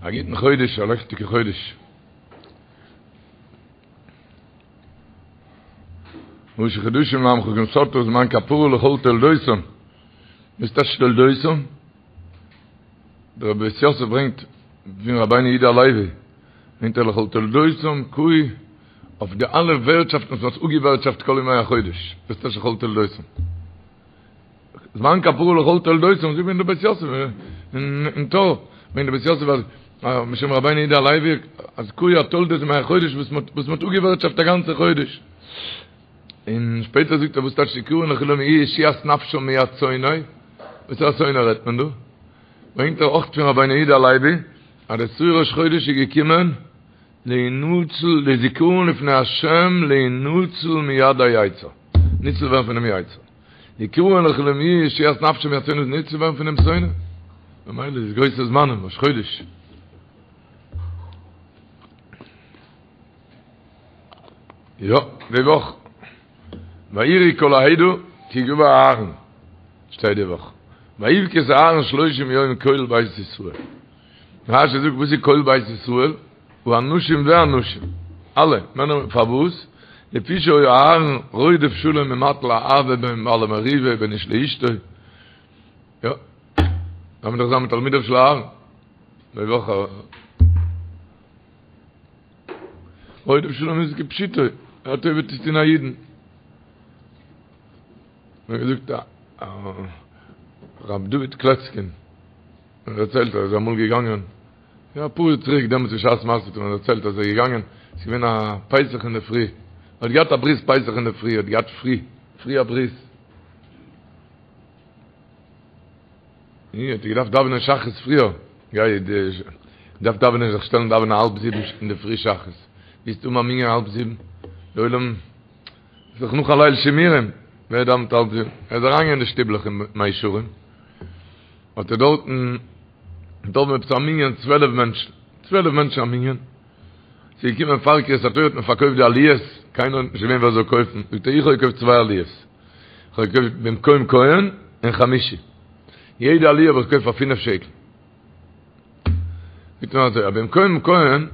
א גוטן חודש, א לעכטיגע חודש. ראשי חדשים לעמך כנתת זמן כפרה לכל תולדותם. וואס טייטש תולדותם? דער בית יוסף ברענגט פון רבינו יהודה הלוי, ברענגט ער לכל תולדותם קאי אויף די אלע ווערטשאפטן וואס מ'האט אפגעווערטשאפט כל ימי החודש. וואס טייטש לכל תולדותם? זמן כפרה לכל תולדותם, זאגט דער בית יוסף אין טור, ברענגט דער בית יוסף אז משום רבינו יהודה הלוי אז קאי אתולדות ימי החודש וואס מ'האט וואס מ'האט אפגעווערטשאפט א גאנצע חודש. און שפעטער זאגט ער וואס טייטש זכרון לכולם יהיה ישועת נפשם מיד שונא, וואס א שונא רעדט מען דא? ברענגט ער אויך פון רבינו יהודה הלוי אז דער שעיר ראש חודש איז געקומען להינצל לזכרון לפני השם להינצל מיד היצר, ניצל ווערן פונעם יצר. זכרון לכולם יהיה ישועת נפשם מיד שונא ניצל ווערן פונעם שונא. ממילא איז גרויסע זמנים ראש חודש. יא, די וואך. ויראו כל העדה כי גוע אהרן. שטייט די וואך. ויבך את אהרן שלושים יום כל בית ישראל. רשי זאגט וואס איז כל בית ישראל? האנשים והנשים, אלע, מענער, פארוואס? לפי שהיה אהרן רודף שלום ומטיל אהבה בין בעלי מריבה ובין איש לאשתו, יא, דארף מען דאך זיין מתלמידיו של אהרן, די וואך א רודף שלום איז כפשוטו, א טובה צו טון א אידן. מיר געזאגט א רב דוד קלעצקין, ער דערציילט אז ער איז אמאל געגאנגען יא אפאר יאר צוריק דעמאלטס בשעת מעשה האט ער מיר דערציילט אז ער איז געגאנגען ס'איז געווען א פסח אינדערפרי ער האט געהאט א ברית פסח אינדערפרי ער האט געהאט פרי פרי א ברית און האט ער געדארפט דאווענען שחרית פריער גיי געדארפט דאווענען זיך שטעלן דאווענען האלב זיבן אינדערפרי שחרית וועסט האבן א מנין האלב זיבן די עולם איז דאך נאך א ליל שימורים ווער דאווענט האלב זיבן ער איז אריינגעגאנגען אין די שטיבלעך אין מאה שערים האט ער דארטן דארט עפעס א מנין 12 מענטשן, 12 מענטשן א מנין, ס'איז געקומען פאר קריאת התורה האט מען פארקויפט די עליות, קיינער האט נישט געווען ווער זאל קויפן, זאגט ער איך האב געקויפט צוויי עליות, איך האב געקויפט במקום כהן און חמישי, יעדע עליה האב איך געקויפט פאר פינף שקל, זאגט ער אזוי, א במקום כהן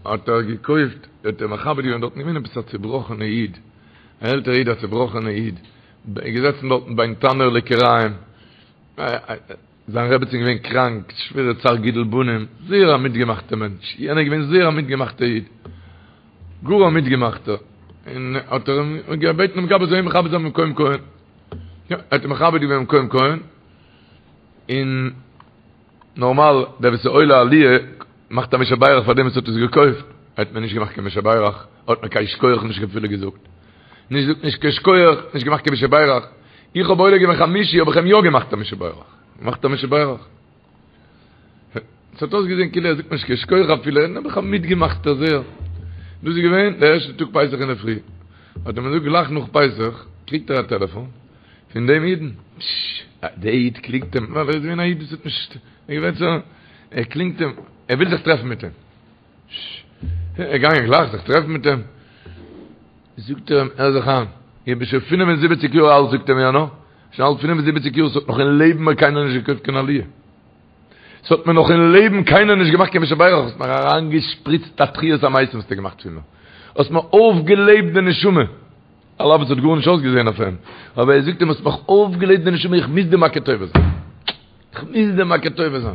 האט ער געקויפט, האט ער מכבד געווען דארטן געווען עפעס א צובראכענע איד, א עלטערע איד א צובראכענע איד, געזעצן דארטן בין תנור לכיריים, זיין רעבעצין געווען קראנק, שווערע צער גידול בנים, זייער א מיטגעמאכטע מענטש, יענער איז געווען זייער א מיטגעמאכטע איד, גאר א מיטגעמאכטער, און האט ער אים געבעטן דעם גבאי זאל אים מכבד זיין במקום כהן, יא, ער האט אים מכבד געווען במקום כהן, און נארמאל דער וואס איז עולה עליה מאכט א מי שברך פאר דעם וואס האט עס געקויפט, האט מען נישט געמאכט קיין מי שברך, האט מען קיין שכוח נישט אפילו געזאגט, נישט זאגט נישט קיין שכוח, נישט געמאכט קיין מי שברך, איך האב עולה געווען חמישי האב איך אים יא געמאכט א מי שברך, געמאכט א מי שברך. עס האט אויסגעזען כאילו ער זאגט נישט קיין שכוח אפילו, נעבעך א מיטגעמאכטער זייער. דאס איז געווען דער ערשטער טאג פסח אינדערפרי, האט ער מיר געזאגט גלייך נאך פסח קריגט ער א טעלעפאן פון דעם אידן, דער איד קלינגט אים, ווייל ער איז געווען א איד וואס האט נישט, ער איז געווען צו, ער קלינגט אים, ער וויל זיך טרעפן מיט אים. ער איז געגאנגען גלייך זיך טרעפן מיט אים. זאגט ער אים, הער זיך איין, איך בין שוין 75 יאר אלט, זאגט אים יענער, שוין אלט 75 יאר, ס'האט נאך אין לעבן מיר קיינער נישט געקויפט קיין עליה. ס'האט מיר נאך אין לעבן קיינער נישט געמאכט קיין מי שברך, האסט מיר אריינגעשפריצט א תחיית המתים האסטו געמאכט פון מיר. האסט מיר אויפגעלעבט די נשמה. על אף עס האט גארנישט אויסגעזען אויף אים, אבער ער זאגט אים האסט מיך אויפגעלעבט די נשמה, איך מוז דיר מכיר טובה זיין. איך מוז דיר מכיר טובה זיין.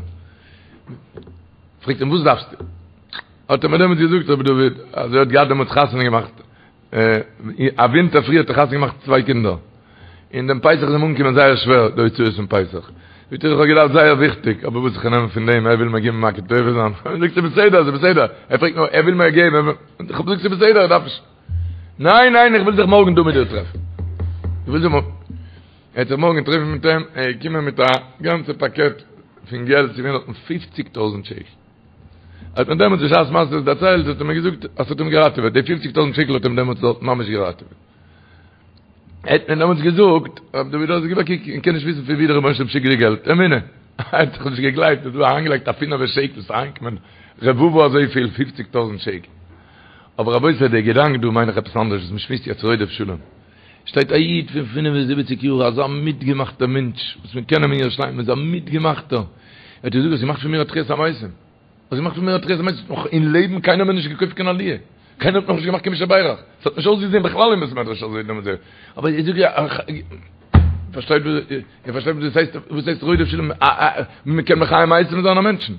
פרעגט אים וואס דארפסטו? האט ער מיר דעמאלטס געזאגט רבי דוד, אז ער האט געהאט דעמאלטס חתונה געמאכט, א ווינטער פריער האט ער חתונה געמאכט צוויי קינדער, און דעם פסח איז אים אנגעקומען זייער שווער די הוצאות פון פסח, זאגט ער איך האב געדארפט זייער וויכטיג, אבער וואס איך נעם פון דעם, ער וויל מיר געבן מכיר טובה זיין, זאגט ער בסדר, ס'איז בסדר, ער פרעגט נאר, ער וויל מיר געבן, איך האב געזאגט ס'איז בסדר, איך דארף נישט. ניין ניין איך וויל זיך מארגן דא מיט דיר טרעפן. איך וויל זיך מארגן. ער האט זיך מארגן געטרעפן מיט אים, ער איז געקומען מיט א גאנצע פאקעט פון געלט, ס'איז געווען דארטן פופציג טויזנט שקל. האט מיר דעמאלטס בשעת מעשה עס דערציילט, האט ער מיר געזאגט אז ס'האט אים געראטעוועט, די פופציג טויזנט שקל האט אים דעמאלטס דארט ממש געראטעוועט. ער האט מיר דעמאלטס געזאגט, רב דוד האט געזאגט, קוק, איך קען נישט וויסן פון ווי דער רבונו של עולם שיקט די געלט, אמונה. ער האט זיך נישט געגלייבט, אז דא אריינגעלייגט א פינעווע שקל, ס'איז אריינגעקומען רבבה אזויפיל, פופציג טויזנט שקל. אבער רבותי דער געדאנק דא מיין איך עפעס אנדערש וואס מ'שמועסט יעצט רודף שלום. שטייט א איד פון 75 יאר אזא מיטגעמאכטער מענטש וואס מיר קענען אים אין ירושלים איז א מיטגעמאכטער. ער האט געזאגט האסט געמאכט פון מיר א תחיית המתים. האסט געמאכט פון מיר א תחיית המתים, נאך אין לעבן קיינער האט מיר נישט געקויפט קיין עליה, קיינער האט נאכנישט געמאכט קיין מי שברך, ס'האט נישט אויסגעזען בכלל אין בית מדרש אזוי דעמאלטס, אבער איך זאג איר, פארשטייט איר פארשטייט וואס דאס הייסט, וואס הייסט רודף שלום, מ'קען מחיה מתים זיין א מענטשן.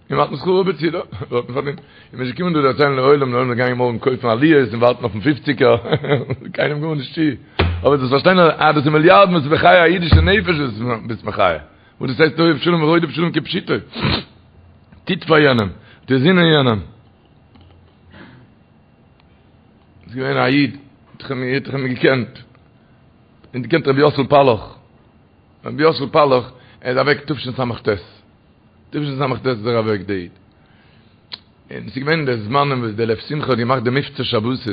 און מ'האט שכרו בצידו, האט מען פארדינט. און מ'איז געקומען דא דערציילן לעולם, די עולם איז געגאנגען מארגן קויפן עליות און ווארטן אויפן פופציגער, קיינעם גארנישט צו. אבער דאס פארשטיין אז דאס איז מיליארדן וואס איז מחיה א אידישע נפש וואס ביסט מחיה. וואס דאס הייסט אוהב שלום ורודף שלום כפשוטו. טוט פאר יענעם, טוט זינען יענעם. איז געווען א איד, האט איך אים געקענט, און געקענט רבי יוסל פאלאך. רבי יוסל פאלאך, ער איז אוועק תשס"ט. תשס"ט איז ער אוועק די איד. און ס'איז געווען די זמנים וואס די לב שמחה האט געמאכט די מבצע שבתות,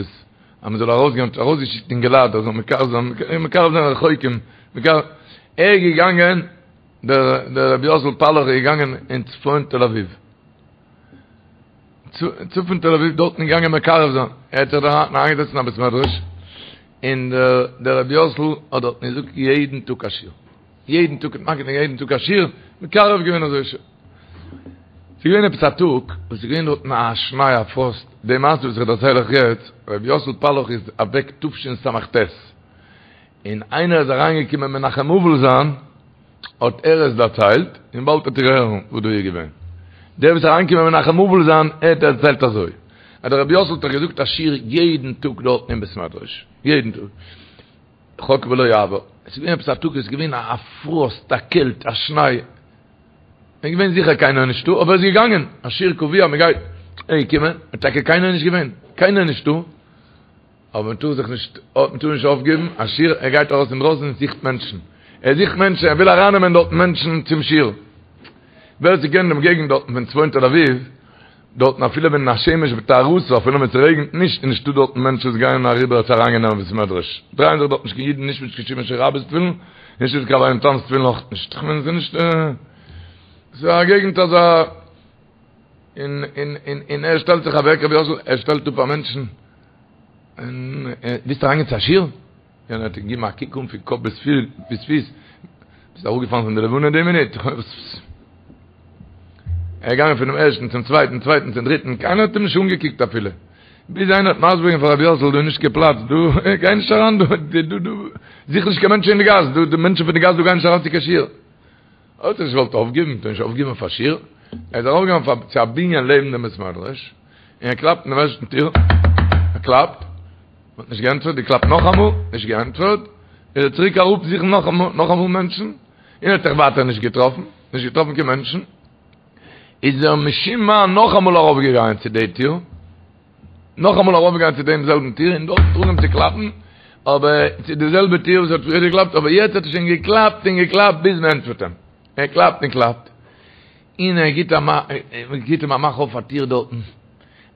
אז מען זאל ארויסגיין, האט ארויסגעשיקט אינגעלייט אז זאל מקרב זיין, מקרב זיין רחוקים, מקרב, ער איז געגאנגען, דער דער רבי יוסל פאלאך איז געגאנגען אין צפון תל אביב. צפון תל אביב דארטן געגאנגען מקרב זיין, ער האט זיך דארט אריינגעזעצט אין א בית מדרש, און דער דער רבי יוסל האט דארטן געזאגט יעדן טאג א שיעור, יעדן טאג האט מגיד יעדן טאג א שיעור, מקרב געווען אזוי ש. ס'איז געווען עפעס א טאג וואס איז געווען דארטן א שניי א פראסט, די מעשה וואס איך דערצייל אייך יעצט, רבי יוסל פאללאך איז אוועק תשס"ט, און איינער איז אריינגעקומען מנחם אבל זיין, האט ער עס דערציילט, און באלד וועט איר הערן וואס דא איז געווען. דער וואס איז אריינגעקומען מנחם אבל זיין, ער האט דערציילט אזוי, אז דער רבי יוסל האט דאך געזאגט א שיעור יעדן טאג דארטן אין בית מדרש, יעדן טאג, חוק ולא יעבור. עס איז געווען עפעס א טאג, עס איז געווען א פראסט, א קעלט, א שניי, איז געווען זיכער קיינער נישטא, אבער ער איז געגאנגען, א שיעור קבוע, מען גייט, ער איז געקומען, טאקע קיינער נישט געווען, קיינער נישטא, אבער מען טאר זיך נישט, מען טאר נישט אויפגעבן, א שיעור, ער גייט ארויס אינדרויסן און זוכט מענטשן, ער זוכט מענטשן, ער וויל ארייננעמען דארטן מענטשן צום שיעור. ווער ס'קען דעם געגנט דארטן פון צפון תל אביב, דארטן אפילו ווען השמש בטהרתה, אפילו ווען ס'רעגנט נישט, איז נישטא דארטן מענטשן וואס גייען אריבער צו אריינגיין אין בית מדרש, דרייען זיך דארט נישט קיין אידן, נישט מיט קיין שימושא רבא'ס תפילין, נישט מיט קיין רבינו תם'ס תפילין אויך נישט, כ'מיין ס'איז נישט, ס'איז א געגנט אזא. און און און און ער שטעלט זיך אוועק רבי יוסל ער שטעלט אפ א מענטשן און ווילסט אריינגיין צו א שיעור? יענער האט אים געגעבן א קוק אן פון קאפ ביז ביז פיס ביסט אראפגעפאלן פון די לבנה די מינוט ער איז געגאנגען פונעם ערשטן צום צווייטן צווייטן צום דריטן קיינער האט אים נישט אנגעקוקט אפילו ביז איינער האט מסביר געווען פאר רבי יוסל דא איז נישט קיין פלאץ דא גיי נישט אריין דא דא דא זוך נישט קיין מענטשן אין די גאס דא די מענטשן פון די גאס דא גייען נישט אריין צו קיין שיעור ער האט זיך נישט געוואלט אויפגעבן, מ'טאר נישט אויפגעבן אויף א שיעור, ער איז ארויפגעגאנגען צו א בנין לעבן דעם בית מדרש, און ער קלאפט אין דעם ערשטן טיר, ער קלאפט, מען האט נישט געענטפערט, געקלאפט נאכאמאל, נישט געענטפערט, איז ער צוריק אראפ זוכן נאכאמאל, נאכאמאל מענטשן, און ער האט זיך ווייטער נישט געטראפן, נישט געטראפן קיין מענטשן, איז ער משום מה נאכאמאל ארויפגעגאנגען צו די טיר, נאכאמאל ארויפגעגאנגען צו דעם זעלבן טיר און דארט אנגעהויבן צו קלאפן, אבער צו די זעלבע טיר וואס האט פריער געקלאפט, אבער יעצט האט ער שוין געקלאפט און געקלאפט ביז מען ענטפערט אים. ער קלאפט און קלאפט, און ער גיט א גיט אים א מאך אויף א טיר דארטן,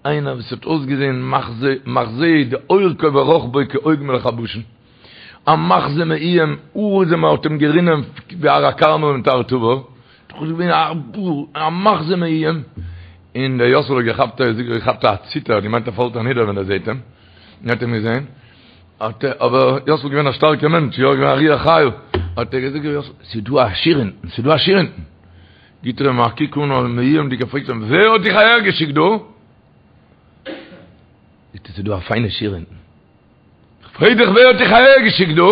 איינער וואס האט אויסגעזען מחזה מחזה די אורכו ורוחבו כעוג מלך הבשן, א מחזה מאוים, האר איז אים האט אים גערינען ווי הר הכרמל מיט הר תבור, דאך איז געווען א מחזה מאוים, און דער יאסל האט געכאפט א געכאפט א ציטער, האט געמיינט ער פאלט אנידער ווען ער זעט אים, און האט אים געזען, האט ער, אבער יאסל איז געווען א שטארקער מענטש, יא געווען א רוח חיה, האט ער געזאגט יאסל, ס'איז דא א שיעור אונטן, ס'איז דא א שיעור אונטן, גיט ער אים א קוק אן א מאוימ'דיגער פרעגט אים, ווער האט דיך אהער געשיקט דא? זאגט ער, ס'איז דא א פיינע שיעור אונטן. כ'פרעג דיך ווער האט דיך אהער געשיקט דא?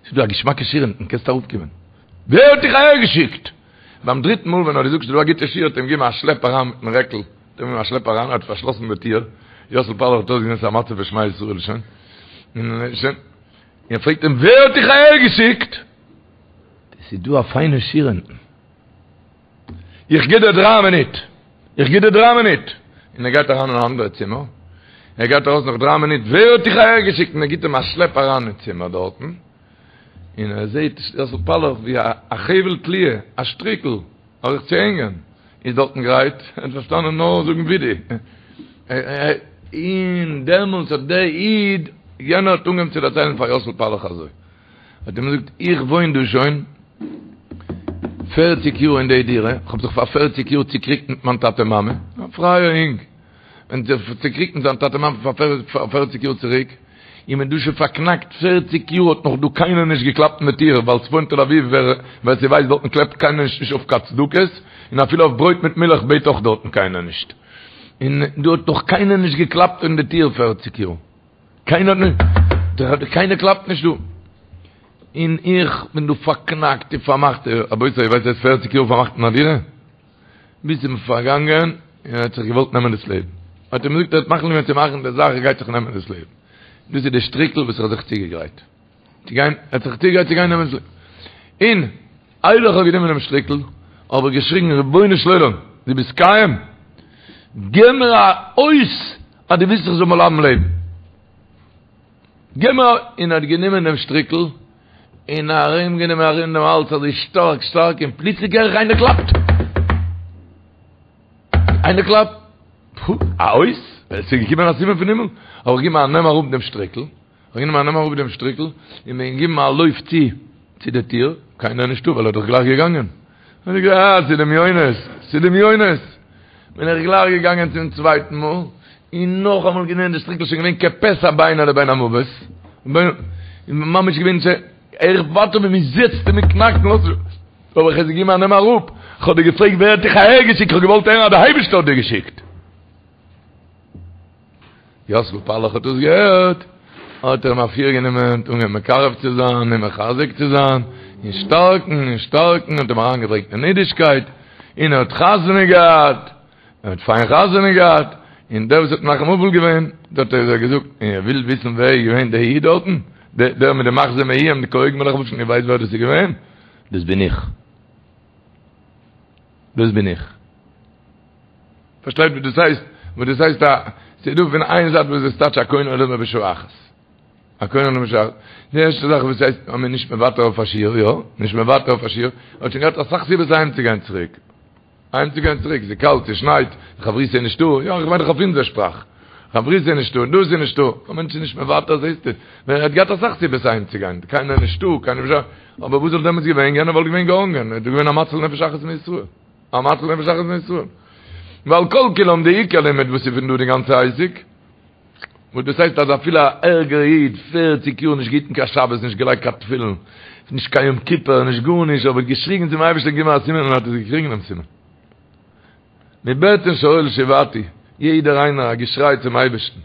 ס'איז דא א געשמאקע שיעור אונטן קענסט אראפקומען. ווער האט דיך אהער געשיקט? ביים דריטן מאל ווען ער האט געזאגט ס'איז דא א גוטע שיעור האט אים געגעבן א שלעפ אריין מיטן רעקל, האט אים געגעבן א שלעפ אריין, ער האט פארשלאסן די טיר, יאסל פאללאך האט אויסגעזען ס'איז א מצב פון שמע ישראל שוין, און שוין, און ער פרעגט אים ווער האט דיך אהער געשיקט? ס'איז דא א פיינע שיעור אונטן. איך גיב דיר דריי מינוט, איך גיב דיר דריי מינוט, און ער גייט אריין אין א אנדערע צימער, ער גייט ארויס נאך דריי מינוט, ווער האט דיך אהער געשיקט, און ער גיבט אים א שלעפ אריין אין צימער דארטן, און ער זעט יאסל פאללאך ווי א חבל תליה, א שטריקל, אויף זיך צו הענגען, איז דארטן גרייט, ער האט פארשטאנען נאר זאגן וידוי, און דעמאלטס האט דער איד, יענער האט אנגעהויבן צו דערציילן פאר יאסל פאללאך אזוי. האט אים געזאגט, איך וואוין דא שוין פערציג יאר אין די דירה, איך האב זיך פאר פערציג יאר צוקריגט מיט מיין טאטע מאמע, א פרייער אינג, און זיך צוקריגט מיט זיין טאטע מאמע פאר פערציג יאר צוריק, איך בין דא שוין פארקנאקט פערציג יאר האט נאך דא קיינער נישט געקלאפט אין די טיר, ווייל צפון תל אביב ווער ווער ס'ווייסט דארטן קלאפט קיינער נישט נישט אויף קיין צדקות, און אפילו אויף ברויט מיט מילך בעט אויך דארטן קיינער נישט, און דא האט נאך קיינער נישט געקלאפט אין די טיר פערציג יאר, קיינער האט נישט, קיינער קלאפט נישט דא, און איך בין דא פארקנאקט און פארמאכט, רבותי איר ווייסט וואס הייסט פערציג יאר פארמאכט אין א דירה? ביז ס'איז אים פארגאנגען און ער האט זיך געוואלט נעמען דאס לעבן. האט ער אים געזאגט ער האט מחליט געווען צו מאכן די זאך ער גייט זיך נעמען דאס לעבן. דאס איז די שטריקל וואס ער האט זיך צוגעגרייט צו גיין, ער האט זיך צוגעגרייט צו גיין נעמען דאס לעבן. און איידער איך האב גענומען דעם שטריקל האב איך געשריגן רבונו של עולם דו ביסט קיים? געב מיר א אות אז דו ווילסט איך זאל בלייבן לעבן. געב מיר א. און ער האט גענומען דעם שטריקל און ארום גענומען ארום דעם האלז אזוי שטארק שטארק און פלוצלינג הער איך איינער קלאפט! איינער קלאפט! פו! א אות? עס איז געקומען א סימן פון הימל? האב איך געגעבן א נעם אראפ דעם שטריקל, האב איך גענומען א נעם אראפ דעם שטריקל און בין געגעבן א לויף צו צו די טיר, קיינער נישטא ווייל ער איז דאך גלייך געגאנגען. האב איך געזאגט אה, ס'איז דמיונות, ס'איז דמיונות. בין איך גלייך געגאנגען צום צווייטן מאל, און נאכאמאל גענומען די שטריקל, שוין געווען כפסע בינו לבין המוות, ממש געווען צו, איך ווארט אויף ווען מ'זעצט און מ'קנאקט און לאזט נישט, האב איך עס געגעבן א נעם אראפ, כ'האב דיר געפרעגט ווער האט דיך אהער געשיקט, כ'האב געוואלט הערן אז דער אייבערשטער האט דיר געשיקט. יאסל פאללאך האט דאס געהערט, האט ער אים אפירגענומען, אנגעהויבן מקרב צו זיין און מחזק צו זיין, און שטארקן און שטארקן, האט אים אריינגעברענגט אין אידישקייט, און ער האט חתונה געהאט, ער האט פיין חתונה געהאט, און דער וואס האט מנחם אבל געווען, דארט האט ער געזאגט, און איר ווילט וויסן ווער איז געווען דער איד דארטן, דער מיט די מחזה מאוים, די כהוגן מלך הבשן, איר ווייסט ווער דאס איז געווען? דאס בין איך. דאס בין איך. פארשטייט וואס דאס הייסט? וואס דאס הייסט א, ס'איז דא פון איין זייט וואס דאס טייטש א קונה עולמו בשעה אחת. א קונה עולמו בשעה אחת. די ערשטע זאך וואס הייסט אז מ'איז נישט מוותר אויף א שיעור, יא, נישט מוותר אויף א שיעור, האט שוין געהאט אסאך סיבות אהיים צו גיין צוריק. אהיים צו גיין צוריק, ס'איז קאלט, ס'שנייט, חברותא איז נישטא, יא, איך מיין דאך אויף אונזער שפראך. חברותא איז נישטא, דאס איז נישטא. א מענטש איז נישט מוותר, זעסטו. ער האט געהאט אסאך סיבות אהיים צו גיין, קיינער נישטא, קיינער נישטא. אבער וואס וואלט דעמאלטס געווען? יענער וואלט געווען געהאנגען, ער איז געווען א מציל נפש אחת מישראל. א מציל נפש אחת מישראל. ועל כל כולם די עיקר לימוד וואס איז פון דא די גאנצע עסק, וואס דאס הייסט אז אפילו א ערגער איד, פערציג יאר נישט געהיטן קיין שבת, נישט געלייגט קיין תפילין, נישט קיין יום כיפור, נישט גארנישט, אבער געשריגן צום אייבערשטען גיב מיר א סימן און האט עס געקריגן דעם סימן. מבטן שאול שועתי, יעדער איינער א געשריי צום אייבערשטן,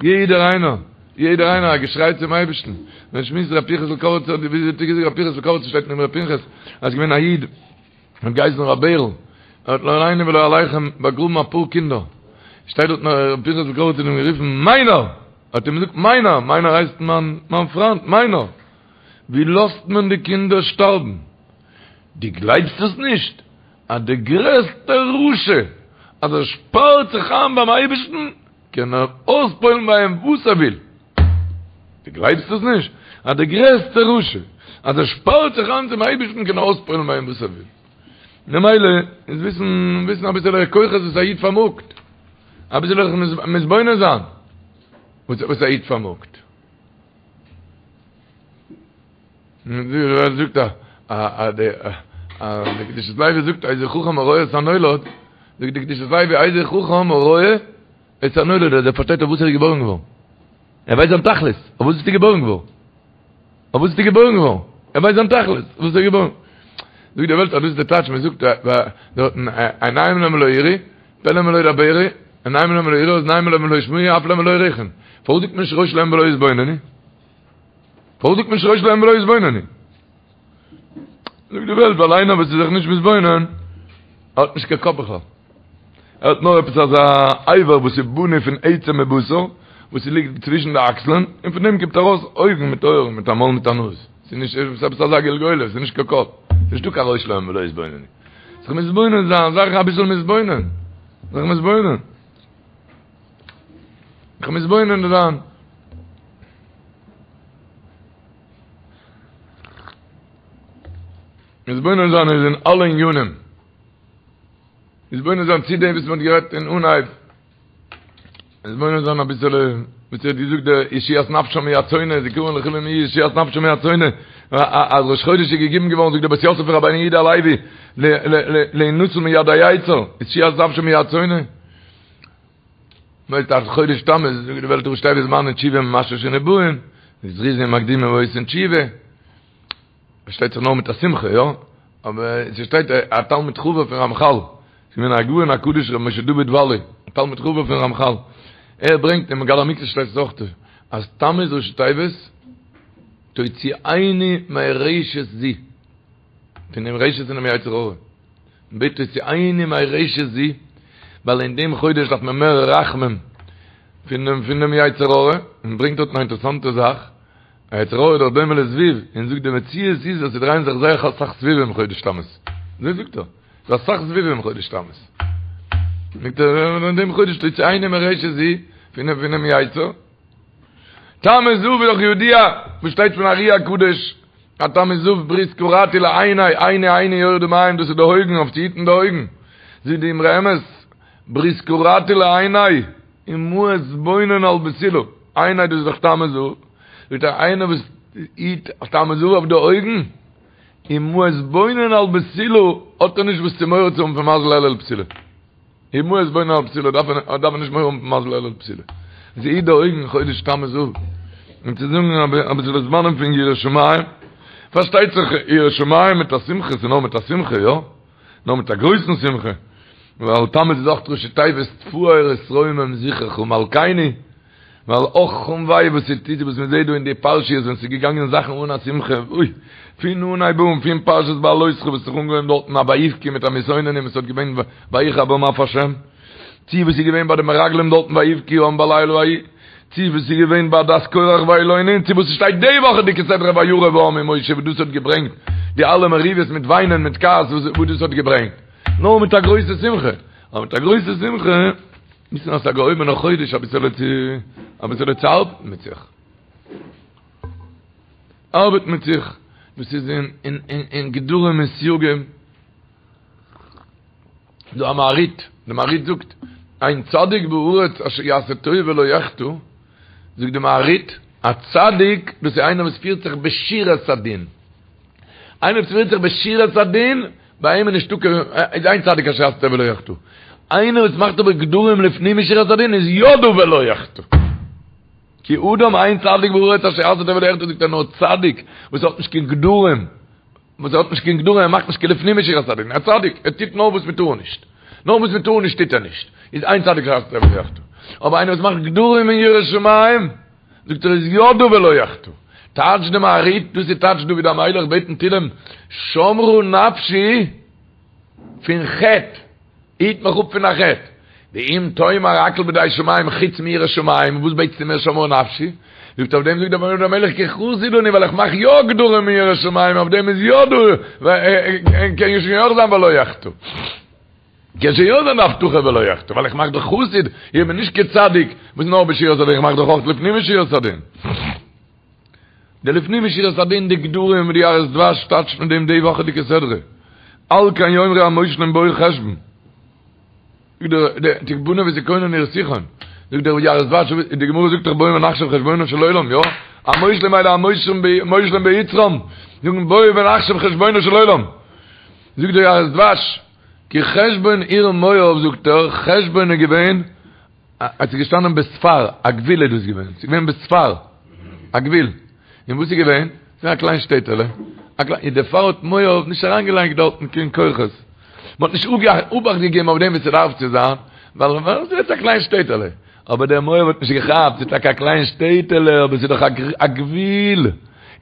יעדער איינער, יעדער איינער א געשריי צום אייבערשטן, מען שמועסט ר' פנחס'ל קאריצער, ווי האט ער געזאגט ר' פנחס'ל קאריצער שטייט אין אמרי פנחס, אז ס'געווען א איד, האט געהייסן ר' בערל, ער האט לא עלינו ולא עליכם באגראבן אפאר קינדער, שטייט דארט ר' פנחס'ל קאריצער האט אים גערופן מיינער! האט אים געזאגט מיינער, מיינער הייסט מיין מיין פריינט, מיינער! ווי לאזט מען די קינדער שטארבן? דו גלייבסט עס נישט? אז דער גרעסטער רשע אז ער שפארט זיך איין ביים אייבערשטן קען ער אויספועלן ביי אים וואס ער וויל. דו גלייבסט עס נישט? אז דער גרעסטער רשע, אז ער שפארט זיך איין צום אייבערשטן קען ער אויספועלן ביי אים וואס ער וויל. ממילא איז וויסן, וויסן אביסעלע כוחות וואס א איד פארמאגט. אביסעלע זיך מתבונן זיין וואס א איד פארמאגט. זאגט א א די א די קדושת לוי זאגט איזהו חכם הרואה את הנולד, זאגט די קדושת לוי איזהו חכם הרואה את הנולד אז ער פארשטייט אויף וואס ער איז געבוירן געווארן. ער ווייסט זיין תכלית, אויף וואס ביסטו געבוירן געווארן? אויף וואס ביסטו געבוירן געווארן? ער ווייסט זיין תכלית, אויף וואס ער איז געבוירן. זאגט די וועלט אז דאס איז די טייטש, מען זאגט דארטן עיניים להם ולא יראו, פה להם ולא ידברו, עיניים להם ולא יראו, אזניים להם ולא ישמעו, אף להם ולא יריחון. פארוואס זאגט מען נישט ראש להם ולא יתבוננו? פארוואס זאגט מען נישט ראש להם ולא יתבוננו? זאגט די וועלט ווייל איינער וואס איז זיך נישט מתבונן האט נישט קיין קאפ בכלל. ער האט נאר עפעס אזא אבר וואס איז בנוי פון עצם מבשר וואס ליגט צווישן די אקסלען און פון דעם קומט ארויס אויגן מיט אויערן מיט א מויל מיט א נאז. ס'איז נישט ס'איז עפעס אזא גלגולת, ס'איז נישט קיין קאפ. ס'איז נישטא קיין ראש להם ולא יתבוננו. זיך מתבונן זיין, זיך אביסל מתבונן. זיך מתבונן. זיך מתבונן זיין. מתבונן זיין איז אין אלע ענינים. מתבונן זיין צו דעם וואס מען האט גערעדט אין אנהייב. מתבונן זיין אביסעלע, וואס האט געזאגט דער ישועת נפשם מיד שונא, זכרון לכולם יהיה ישועת נפשם מיד שונא. אז ראש חודש איז געגעבן געווארן, זאגט דער בית יוסף פון רבינו יהודה הלוי, להינצל מיד היצר, ישועת נפשם מיד שונא. מ'ווייסט אז חודש תמוז זאגט די וועלט ראשי תיבות זמני תשובה ממשמשין ובאין, זריזין מקדימין ועושין תשובה, פארשטייט זיך נאר מיט א שמחה, יא? אבער ס'שטייט א תלמיד חבר פון רמחל, ס'איז געווען הגאון הקדוש ר' משה דוד וואלי, א תלמיד חבר פון רמחל, ער ברענגט אין מגלה עמוקות שטייט עס אויך אז תמוז ראשי תיבות תוציאני מרשת זו, פונעם רשת פונעם יצר הרע, מ'בעט תוציאני מרשת זו, ווייל אין דעם חודש דארף מען מער רחמים פונעם פונעם יצר הרע, און ברענגט דארטן א אינטערעסאנטע זאך, א יצר הרע איז דאך דומה לזבוב, און זאגט די מציאות איז אז ס'דרייען זיך זייער אסאך זבובים חודש תמוז, אזוי זאגט ער, ס'איז אסאך זבובים חודש תמוז, זאגט ער אין דעם חודש תוציאני מרשת זו, פונעם פונעם יצר, תמוז אב איז דאך ידוע וואס שטייט פון ארי הקדוש, אז תמוז אב ברית כרתי לעיני, עיני עיני יורדה מים, דאס איז די אויגן, אויף צו היטן די אויגן, זאגט די אמרי אמת, ברית כרתי לעיני, ומה אתבונן על בתולה, עיני דאס איז דאך תמוז אב, זאגט ער איינער וואס היט תמוז אב אויף די אויגן, ומה אתבונן על בתולה, האט ער נישט וואס צו מורא צו האבן פון מזל אלול בתולה. ומה אתבונן על בתולה דארף ער דארף ער נישט מורא האבן פון מזל אלול בתולה. זי היט די אויגן חודש תמוז אב. און צו זאגן אביסל זמנים פון יראת שמים, פארשטייט זיך יראת שמים מיט א שמחה, ס'איז נאר מיט א שמחה, יא? נאר מיט א גרויסן שמחה, ווייל תמוז איז אויך ראשי תיבות תפאר ותרומם זכרך מלכינו, ווייל אך און וויי וואס ס'טוט וואס מ'זעט דא אין די פרשיות ווען ס'איז געגאנגען זאכן אן א שמחה, אוי, פון אנהייב אן, פון פרשת בהעלותך וואס האט זיך אנגעהויבן דארטן א ויבכו מיט א מתאוננים וואס האט געווען ויחר בם אף השם, צו וואס איז געווען ביי די מרגלים דארטן ויבכו העם בלילה ההוא, צו וואס איז געווען ביי עדת קורח וילונו, צו וואס ס'שטייט די וואכעדיגע סדרה וירב העם עם משה וואס דאס האט געברענגט די אלע מריבות מיט וויינען מיט כעס וואס דאס האט געברענגט, נאר מיט א גרויסע שמחה, אבער מיט א גרויסע שמחה, וויסן אז ס'איז א געהויבענער חודש אביסעלע צו אביסעלע צו ארבעטן מיט זיך. ארבעטן מיט זיך, וואס איז אין אין אין גדרים און סייגים. דא א מהרי"ט, די מהרי"ט זאגט, אין צדיק בארץ אשר יעשה טוב ולא יחטא, זאגט די מהרי"ט, א צדיק דאס איז איינער וואס פירט זיך בשורת הדין. איינער וואס פירט זיך בשורת הדין, ביי אים איז נישטא קיין, איז אין צדיק אשר יעשה טוב ולא יחטא. איינער וואס מאכט אבער גדרים לפנים משורת הדין איז יא דא ולא יחטא. כי אדם אין צדיק בארץ אשר יעשה טוב ולא יחטא זאגט ער נאר צדיק וואס האט נישט קיין גדרים, וואס האט נישט קיין גדרים, ער מאכט נישט קיין לפנים משורת הדין, א צדיק, ער טוט נאר וואס מען טאר נישט, נאר וואס מען טאר נישט טוט ער נישט, איז אין צדיק אשר יעשה טוב ולא יחטא. אבער איינער וואס מאכט גדרים אין יראת שמים, זאגט ער איז יא דא ולא יחטא. טייטש די מהרי"ט, דאס איז טייטש דוד המלך בעט אין תהילים, שמרה נפשי פון חטא, היט מיך אפ פון א חטא. ואם תאמר הכל בידי שמים חוץ מיראת שמים, וואס בעטסטו מיר שמרה נפשי? זאגט אויף דעם זאגט דוד המלך כי חסיד אני ווייל איך מאך יא גדרים אין יראת שמים, אויף דעם איז יא דא, קען שוין יא זיין ולא יחטא. קען שוין יא זיין די הבטחה ולא יחטא, ווייל איך מאך דאך חסיד, איך בין נישט קיין צדיק וואס נאר בשורת הדין, איך מאך דאך אויך לפנים משורת הדין. די לפנים משורת הדין, די גדרים ווי די יערות דבש טייטשט מיט דעם די וואכעדיגע סדרה, על כן יאמרו המושלים בוא חשבון. זאגט דער דער תבנה ותכונן עיר סיחון, זאגט דער יערות דבש, די גמרא זאגט דאך בואו ונחשב חשבונו של עולם, יא? המושלים האלה המושלים ביצרם, זאגן בואו ונחשב חשבונו של עולם. זאגט דער יערות דבש, כי חשבון עיר מואב זאגט ער, חשבון איז געווען, אז ס'איז געשטאנען בספר, א גבול איז דאס געווען, ס'איז געווען בספר, א גבול, און וואס איז געווען? ס'איז געווען א קליין שטעטעלע, א קליין, און דערפאר האט מואב נישט אריינגעלייגט דארטן קיין כוחות, מ'האט נישט אובאכט געגעבן אויף דעם ווי ס'דארף צו זיין, ווייל ס'איז א קליין שטעטעלע, אבער דער מואב האט נישט געכאפט, ס'איז טאקע א קליין שטעטעלע, אבער ס'איז דאך א גבול,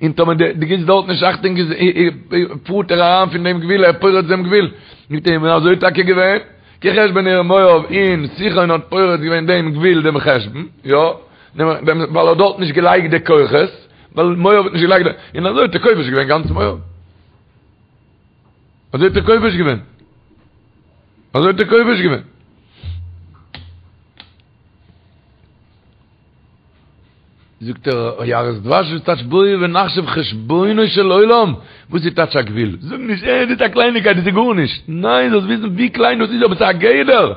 און טאמער דו גיבסט דארט נישט אכטונג איז פארט ער אריין פון דעם גבול, ער פורץ דעם גבול. זאגט ער, און אזוי איז טאקע געווען, כי חשבון עיר מואב, און סיחון האט פורץ געווען דעם גבול דעם חשבון, יא, ווייל ער האט דארט נישט געלייגט די כוחות, ווייל מואב האט נישט געלייגט די, און אזוי האט ער כובש געווען גאנץ מואב. אזוי האט ער כובש געווען. אזוי האט ער כובש געווען. זאגט דער יערות דבש וואס טייטש בואו ונחשב חשבונו של עולם? וואס איז טייטש א גבול? זאג נישט אה דאס איז א קלייניקייט דאס איז גארנישט. ניין זאלסט וויסן ווי קליין דאס איז אבער ס'איז א גדר.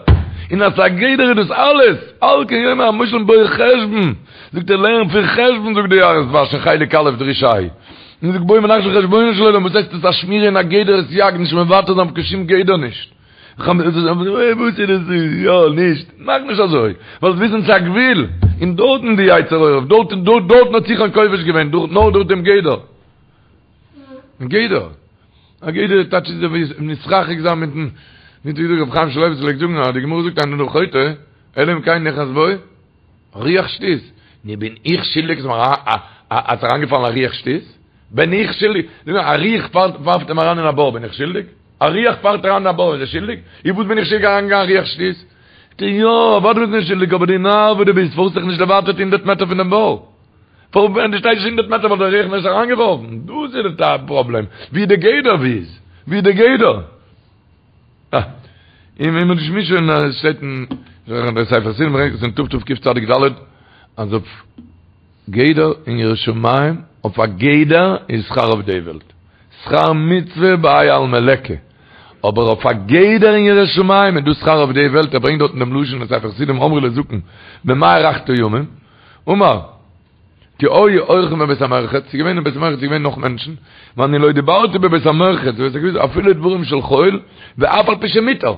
און אז ס'איז א גדר איז דאס אלעס. על כן יאמרו המושלים בוא חשבון. זאגט ער לערן פון חשבון זאגט דער יערות דבש אין חלק א' דרוש ה'. און זאגט בואו ונחשב חשבונו של עולם וואס הייסט עס א שמירה און א גדר וסייג נישט מוותר זיין אויף קיין שום גדר נישט. וואס איז דאס יא נישט, מאך נישט אזוי, זאלסט וויסן ס'איז א גבול, און דארטן די יצר הרע, דארט דארטן האט סיחון כובש געווען, נאר דורך דעם גדר. גדר. א גדר טייטש איז ווי נתרחק זיין מיטן מיט ווי רבי חיים שמואלביץ פלעגט זאגן אז די גמרא זאגט אין אדם חוטא אלא אם כן נכנס בו רוח שטות. נו בין איך שולדיג אז ס'איז אריינגעפאלן א רוח שטות? בין איך שולדיג? זאג נאר, א רוח ווארפט אים אריין אין א בור, בין איך שולדיג? א רוח פארט אריין אין א בור, איז ער שולדיג? איז וואס בין איך שולדיג אריינגעגאנגען א רוח שטות? זאגט ער, יא, אוודאי ביסטו נישט שולדיג, אבער דו נאר וואס דו ביסט, פארוואס האסט דיך נישט דערווייטערט הונדערט מעטער פון דעם בור? פארוואס ווען דו שטייסט נישט הונדערט מעטער וואלט דער רוח נישט אריינגעווארפן? דאס איז די פראבלעם, ווי די גדר ווי איז? ווי די גדר? אה, און ווען מ'האט נישט שוין עס שטייט אין דער ספר חסידים ברענגט עס אין תתקצ"ד אז אויף גדר אין יראת שמים אויף א גדר איז שכר אויף די וועלט שכר מצוה בהאי עלמא ליכא אבער אויף א גדר אין יראת שמים איז דא שכר אויף די וועלט ער ברענגט דארטן דעם לשון אין ספר חסידים אמרו לזקן במה הארכת ימים אמר כי היו אורחים בבית המרחץ, ס'איז געווען אין בית המרחץ איז געווען נאך מענטשן, ואני לא דיברתי בבית המרחץ, אפילו דברים של חול, ואף על פי שמותר,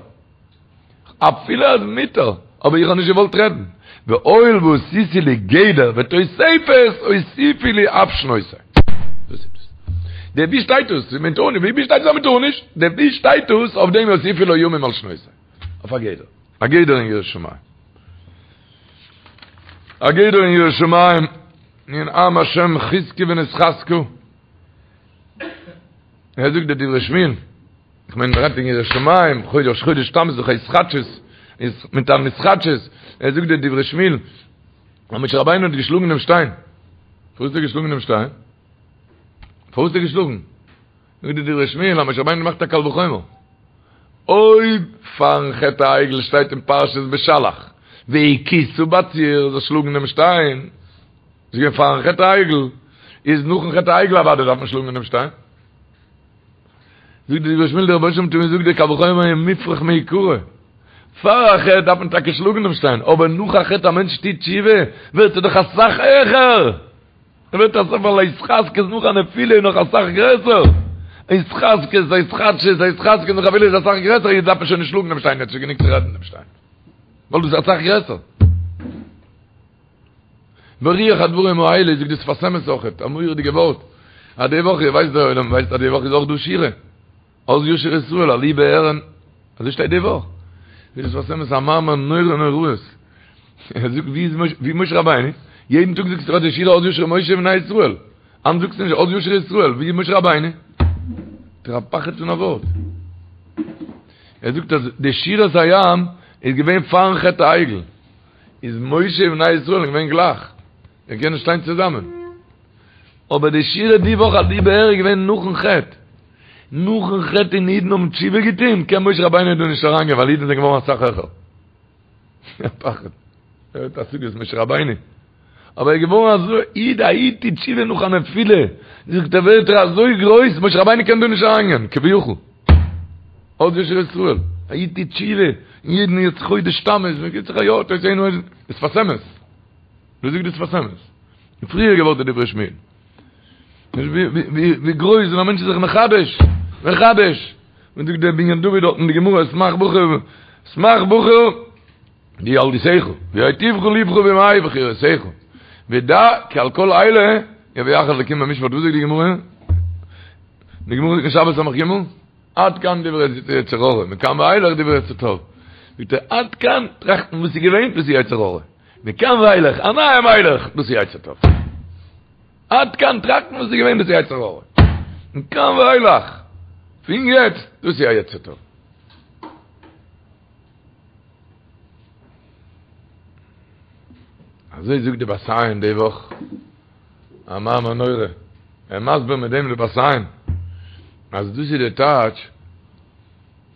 אפילו אז מותר, אבער איך האב נישט געוואלט רעדן, והואיל ועשיתי לי גדר ותוספת, הוסיפו לי אף שנותי. דאס איז דאס. דער ווי שטייט דאס? מען טאר נישט, ווי שטייט דאס אז מען טאר נישט? דער ווי שטייט דאס אויף דעם הוסיפו לו ימים על שנותי. אויף א גדר. א גדר אין יראת שמים. א גדר אין יראת שמים, אין עם השם חזקו ונתחזקה. ער זאגט די דברי שמואל, איך מיין מ'רעדט אין יראת שמים, חודש חודש תמוז דאך התחדשות, איז מיט אן התחדשות, ער זאגט די דברי שמואל, אז משה רבינו האט געשלאגן דעם שטיין. פארוואס האט ער געשלאגן דעם שטיין? פארוואס האט ער געשלאגן? זאגט די דברי שמואל אז משה רבינו האט געמאכט א קל וחומר. אויב פארן חטא העגל שטייט אין פרשת בשלח והכית בצור זאל שלאגן דעם שטיין, איז געווען פארן חטא העגל, איז נאכן חטא העגל אוודאי דארף מען שלאגן דעם שטיין. זאגט די דברי שמואל דער רבונו של עולם האט אים געזאגט דער קל וחומר איז מופרך מעיקרא. פאר א חטא דארף מען טאקע שלאגן דעם שטיין, אבער נאך א חטא א מענטש טוט תשובה ווערט ער דאך אסאך העכער. ער ווערט אסאך ווייל התחזקות נאך א נפילה איז נאך אסאך גרעסער, התחזקות, התחדשות, התחזקות נאך א נפילה איז אסאך גרעסער, יעצט דארף מען שוין נישט שלאגן דעם שטיין, יעצט איז גענוג צו רעדן דעם שטיין, ווייל דאס איז אסאך גרעסער. ברוח הדברים האלה זאגט די שפת אמת אויכעט, א מורא'דיגע ווארט, אז די וואך, איר ווייסט דער עולם ווייסט אז די וואך איז אויך דא שירה. אז ישיר ישראל עלו בארון, אזוי שטייט די וואך. זאגט דער שפת אמת א מאמר נורא נוראות. ער זאגט ווי איז משה, ווי משה רבינו? יעדן טאג זאגסטו די שירה אז ישיר משה ובני ישראל. היינט זאגסטו נישט אז ישיר ישראל, ווי איז משה רבינו? דער א פחד פון א ווארט. ער זאגט אז די שירת הים איז געווען פארן חטא העגל. איז משה ובני ישראל געווען גלייך. זיי קענען שטיין צוזאמען. אבער די שירה די וואך עלו באר איז געווען נאכן חטא. נאכן חטא און אידן האבן תשובה געטון, קען משה רבינו דא נישט אריינגיין ווייל אידן זענען געווארן אסאך העכער. א פחד. ער האט השגות משה רבינו. אבער ער איז געווארן אזוי איד, א איד טוט תשובה נאך א נפילה, זאגט ער ווערט ער אזוי גרויס, משה רבינו קען דא נישט אריינגיין, כביכול. אז ישיר ישראל, א איד טוט תשובה, און יעדן יעצט חודש תמוז, מען גיבט זיך א יא, תוס' אינו, שפת אמת. ווי זאגט די שפת אמת? די פריעריגע ווארט איז דברי שמואל. ווי גרויס ווען א מענטש איז זיך מחדש, מחדש. ווי זאגט דער בנין דוד דארט אין די גמרא, שמח בחור, שמח בחור, בילדותך, ויטיבך לבך בימי בחורותיך. ודע כי על כל אלה יביאך אלקים במשפט. וואס זאגט די גמרא? די גמרא זאגט אין שבת סמך ג', עד כאן דברי יצר הרע, מכאן ואילך דברי יצר טוב. זאגט ער, עד כאן טראכטן וואס איז געווען, דאס איז יצר הרע. מכאן ואילך, א נייע מלך, דאס איז יצר טוב. עד כאן טראכטן וואס איז געווען דאס איז יצר הרע. מכאן ואילך, פון יעצט, דאס איז א יצר טוב. אזוי זאגט די בת עין די וואך, א מאמר נורא. ער מסביר מיט דעם די בת עין, אז דאס איז די טייטש,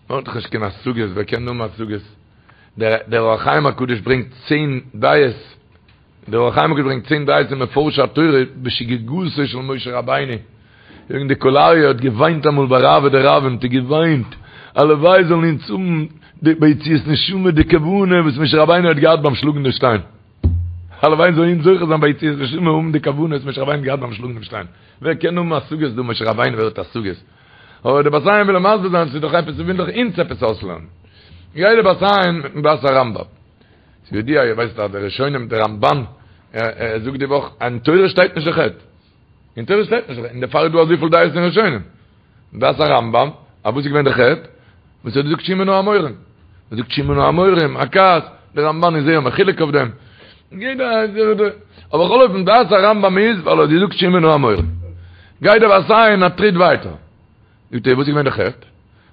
מען האט דאך נישט קיין השגות, ווער קען האבן השגות? דער אור החיים הקדוש ברענגט צען דעות, דער אור החיים הקדוש ברענגט צען דעות אין מפרשי התורה בשגגתו של משה רבינו, זאגן די קול אריה האט געוויינט אמאל ביי רעוא דרעוין, האט ער געוויינט, הלוואי זאלן אונז האבן די ביציאת נשמה די כוונה וואס משה רבינו האט געהאט ביים שלאגן די שטיין, הלוואי זאלן אונז זוכה זיין ביציאת נשמה האבן די כוונה וואס משה רבינו האט געהאט ביים שלאגן דעם שטיין, ווער קען האבן השגות דא משה רבינו ווער האט השגות? אבער די בת עין וויל אים מסביר זיין ס'איז דאך עפעס וויל דאך אונז עפעס אויסלערנען. גיי דער בת עין מיטן דעת הרמב"ם. ס'איז ידוע, איר ווייסט אז די ראשונים, דער רמב"ן, ער זאגט די וואך, אין תורה שטייט נישט די חטא. אין תורה שטייט נישט די חטא, און דערפאר איז דא אזויפיל דעות אין ראשונים. דעת הרמב"ם, אז וואס איז געווען די חטא? וואס ער האט געזאגט שמעו נא המורים. ער זאגט שמעו נא המורים, א כעס, דער רמב"ן איז זייער מחולק אויף דעם. יעדער אבער בכל אופן דעת הרמב"ם איז ווייל ער האט געזאגט שמעו נא המורים. גייט דער בת עין א טריט ווייטער. זאגט ער וואס איז געווען די חטא?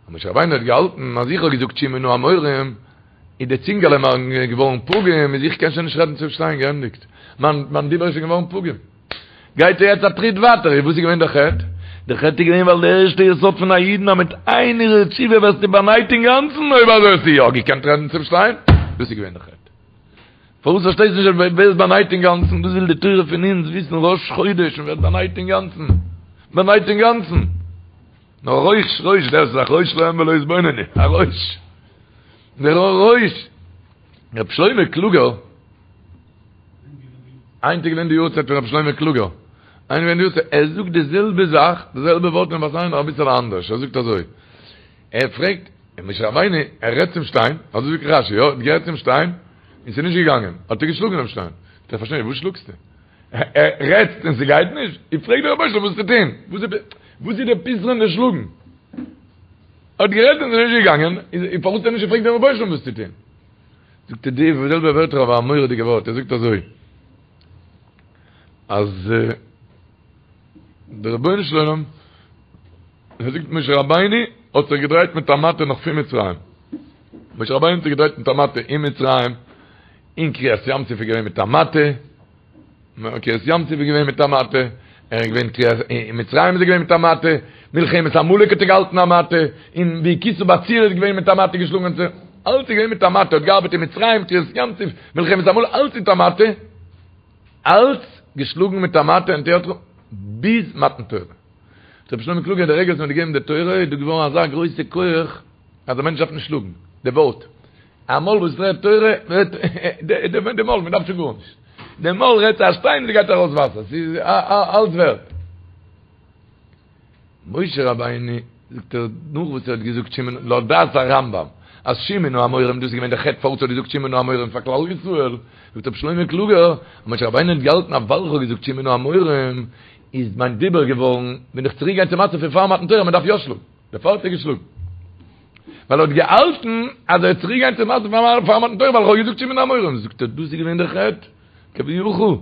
אז משה רבינו האט געהאלטן אז איך האב געזאגט שמעו נא המורים, איז די צינגעלע מיר געווארן פגום, איז איך קען שוין נישט רעדן צום שטיין, געענדיגט. מיין מיין דיבור איז שוין געווארן פגום. גייט ער יעצט א טריט ווייטער, איז וואס איז געווען די חטא? די חטא איז געווען ווייל די ערשטע יסוד פון א אידן אז מיט איין הרהור תשובה ווערסטו באנייט אינגאנצן, אויב אזוי האסטו יא געקענט רעדן צום שטיין, דאס איז געווען די חטא. פארוואס פארשטייסטו נישט אז ווערסט באנייט אינגאנצן? דאס וויל די תורה פון אונז וויסן ראש חודש מען ווערט באנייט אינגאנצן, באנייט אינגאנצן. נאר ראש ראש דער איז א ראש להם ולא יתבוננו, א ראש. דער ראש. רב שלמה קלוגער, היינט איז געווען די יארצייט פון רב שלמה קלוגער, היינט געווען די יארצייט, ער זאגט די זעלבע זאך, די זעלבע ווארט אין בת עין נאר אביסעלע אנדערש, ער זאגט אזוי, ער פרעגט, משה רבינו, ער רעדט צום שטיין, אזוי זאגט רש"י, יא, ער האט גערעדט צום שטיין, און ס'איז נישט געגאנגען, האט ער געשלאגן דעם שטיין, זאגט ער, פארשטיי נישט, וואס שלאגסטו? ער רעדט און ס'גייט נישט? איך פרעג דער רבונו של עולם וואס צו טון, וואס איז דער פתרון די שלאגן? ער האט גערעדט און ס'איז נישט געגאנגען, איז פארוואס האט ער נישט געפרעגט דעם רבונו של עולם וואס צו טון? זאגט ער די זעלבע ווערטער אבער א מורא'דיגע ווארט, ער זאגט אזוי, אז דער רבונו של עולם, ער זאגט משה רבינו האט זיך געדרייט מיט א מטה נאך פון מצרים, משה רבינו האט זיך געדרייט מיט א מטה אין מצרים, אין קריעת ים סוף איז געווען מיט א מטה, קריעת ים סוף איז געווען מיט א מטה, ער איז געווען קריעת, אין מצרים איז ער געווען מיט א מטה, מלחמת עמלק האט ער געהאלטן א מטה, און והכית בצור איז געווען מיט א מטה געשלאגן צו, אלץ איז געווען מיט א מטה, האט געארבעט אין מצרים, קריעת ים סוף, מלחמת עמלק, אלץ מיט א מטה, אלץ געשלאגן מיט א מטה און תיאטרון, ביז מתן תורה. רבי שלמה קלוגער די רגע וואס מען האט געגעבן די תורה איז דא געווארן אזא גרויסע כח אז א מענטש דארף נישט שלאגן, די ווארט, א מויל וואס רעדט תורה, די מויל, מען דארף שוין גארנישט. די מויל רעדט צו א שטיין, ס'גייט ארויס וואסער, ס'איז אלץ ווערט. משה רבינו, זאגט ער, נאך וואס ער האט געזאגט שמעו נא, לויט דעת הרמב"ם, אז שמעו נא המורים, דאס איז געווען די חטא פארוואס ער האט געזאגט שמעו נא המורים פאר כלל ישראל, זאגט רבי שלמה קלוגער, אז משה רבינו האט געהאלטן אז ווייל איך האב געזאגט שמעו נא המורים, איז מיין דיבור געווארן, בין איך צוריק געגאנגען צום מצב פון פאר מתן תורה, מען דארף יא שלאגן. דערפאר האט ער געשלאגן. ווייל ער האט געהאלטן אז ער וועט צוריק גיין צום מצב פאר מתן תורה ווייל איך האב געזאגט שמעו נא המורים. זאגט ער דאס איז געווען דער חטא, כביכול,